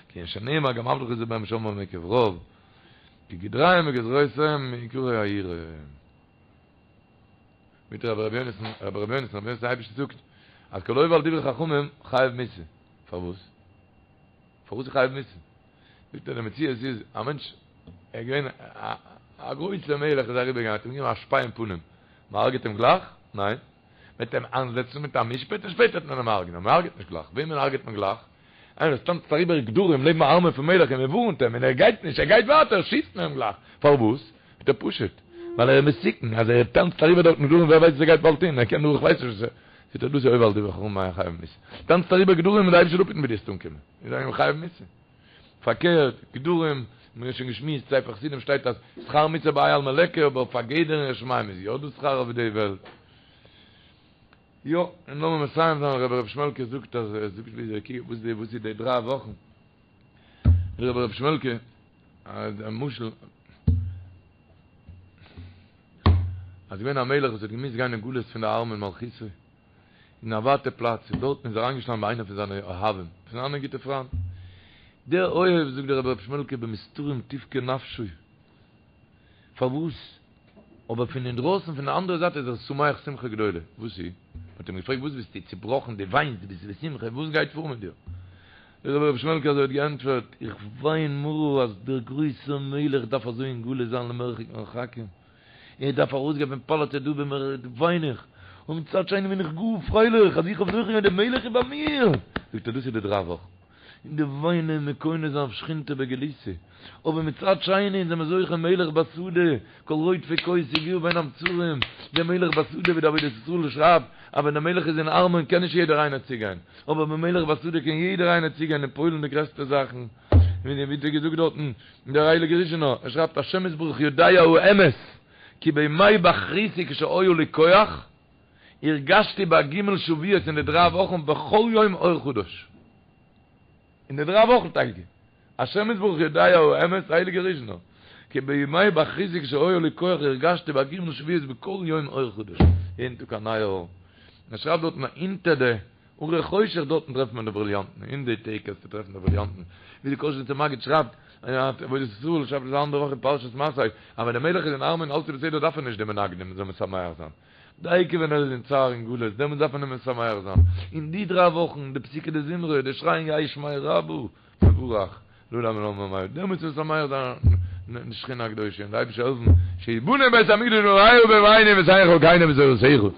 כענין שנאמר גם עבדך יזהר בהם ושמרם מעקב רב, כי גדריהם וגזרותיהם מעיקרי היראה. מיט רבי רבי יונתן, רבי רבי יונתן, רבי יונתן אייבשיץ זאגט אז כל העובר על דברי חכמים חייב מיתה. פארוואס? פארוואס איז חייב מיתה? זאגט ער די מציאות איז א מענטש ער איז געווען א גרויסער מלך איז אריבער געגאנגען האט אים געגעבן א שפיי אין פנים, מ'הרג'עט אים גלייך? ניין. מ'וועט אים איינזעצן מיט א משפט און שפעטער וועט מען אים הרג'נען, מען הרג'עט נישט גלייך, וועמען הרג'עט מען גלייך? איינער וואס טאנצט אריבער גדרים לעבן א ארמון פון מלך און מען ווארנט אים און ער גייט נישט, ער גייט ווייטער, שיסט מען אים גלייך, פארוואס? זאגט ער פשוט, ווייל ער איז מסוכן, אז ער טאנצט אריבער דארטן גדרים ווער ווייסט וואס ער גייט באלד טון, ער קען דורך ווייס נישט וואס ער, זאגט ער דאס איז עובר על דברי חכמים חייב מיתה, טאנצט אריבער גדרים און די אייבערשטער זאל אפהיטן ווי דו וועסט אנקומען, איז ער חייב מיתה. פארקערט, גדרים, מיר האבן שוין געשמועסט, ספר חסידים שטייט אז שכר מצוה בהאי עלמא ליכא, אבער פאר גדר אין יראת שמים איז יא דא שכר אויף די וועלט. יא, און לאמיר מסיים זיין, רבי ר' שמעלקע זאגט אז ער זאגט ווי אזוי וואס די וואס איז די דריי וואכן. רבי ר' שמעלקע, א משל, אז געווען א מלך וואס האט געמוזט גיין אין גלות פון די ארמון מלכותו, אין א ווייטע פלאץ, און דארטן איז אריינגעשטאנען ביי איינער פון זיינע אוהבים, פון זיינע גוטע פריינט. דער אוהב, זאגט דער רבי ר' שמעלקע, במסתרים תבכה נפשו. פארוואס? אבער פון אינדרויסן, פון די אנדערע זייט איז ער שמח שמחה גדולה. וואס איז? מען האט אים געפרעגט, וואס ביסטו צובראכן, דו וויינסט, דו ביסט בשמחה, וואס גייט פאר מיט דיר? דער רבי ר' שמעלקע אזוי האט געענטפערט, איך וויין מרה אז דער גרויסער מלך דארף אזוי אין גלות זיין למרחק מרחקים. ער דארף ארויסגיין פון פאלאץ דא במרחק וויין איך, און מצד שני בין איך גאר פרייליך אז איך האב זוכה געווען דער מלך איז ביי מיר, זאגט ער דאס איז די דריי וואכן, און די וויינען מקונן זיין אויף שכינתא בגלותא, אבער מצד שני זענען מיר זוכה מלך בשדה, כל רודפי כוס יגיעו בין המצרים, דער מלך בשדה ווי די עבודת ישראל שרייבט אז ווען דער מלך איז אין ארמון קען נישט יעדער איינער צוגיין, אבער ביים מלך בשדה קען יעדער איינער צוגיין און פועל'ן די גרעסטע זאכן. ווי האט ער געזאגט דארטן דער הייליגער ריזשינער, ער שרייבט השם יתברך יודע האמת כי בימי בחרותי כשהיה לי כח הרגשתי בהג' שבועות אין די דריי וואכן בכל יום אור חדש אין די דריי וואכן טאקע השם יתברך יודע האמת הייליגער ריזשינער כי בימי בחרותי כשהיה לי כח הרגשתי בהג' שבועות בכל יום אור חדש יעדן טאג א נייע אור ער שרייבט דארטן אונטער די. הרי חושך דארטן טרעפט מען די בריליאנטן, אין די טעג קענסטו טרעפן די בריליאנטן, ווי די קאזשניצער מגיד שרייבט, אין עבודת ישראל שרייבט עס א אנדערע וואך אין פרשת מסעי, אז ווען דער מלך איז אין ארמון אלץ איז בסדר דארף ער נישט די מנגנים זאל משמח זיין, דייקא ווען ער איז אין צער און גלות דעמאלטס דארף מען אים משמח זיין, אין די דריי וואכן, די פסוקי דזמרה, די שרייען יהא שמיה רבא, מבורך, לעלם ולעלמי עד, דעמאלטס איז משמח זיין די שכינה הקדושה און די אייבערשטער העלפן שיבנה בית המקדש במהרה בימינו ותן חלקינו בתורתך.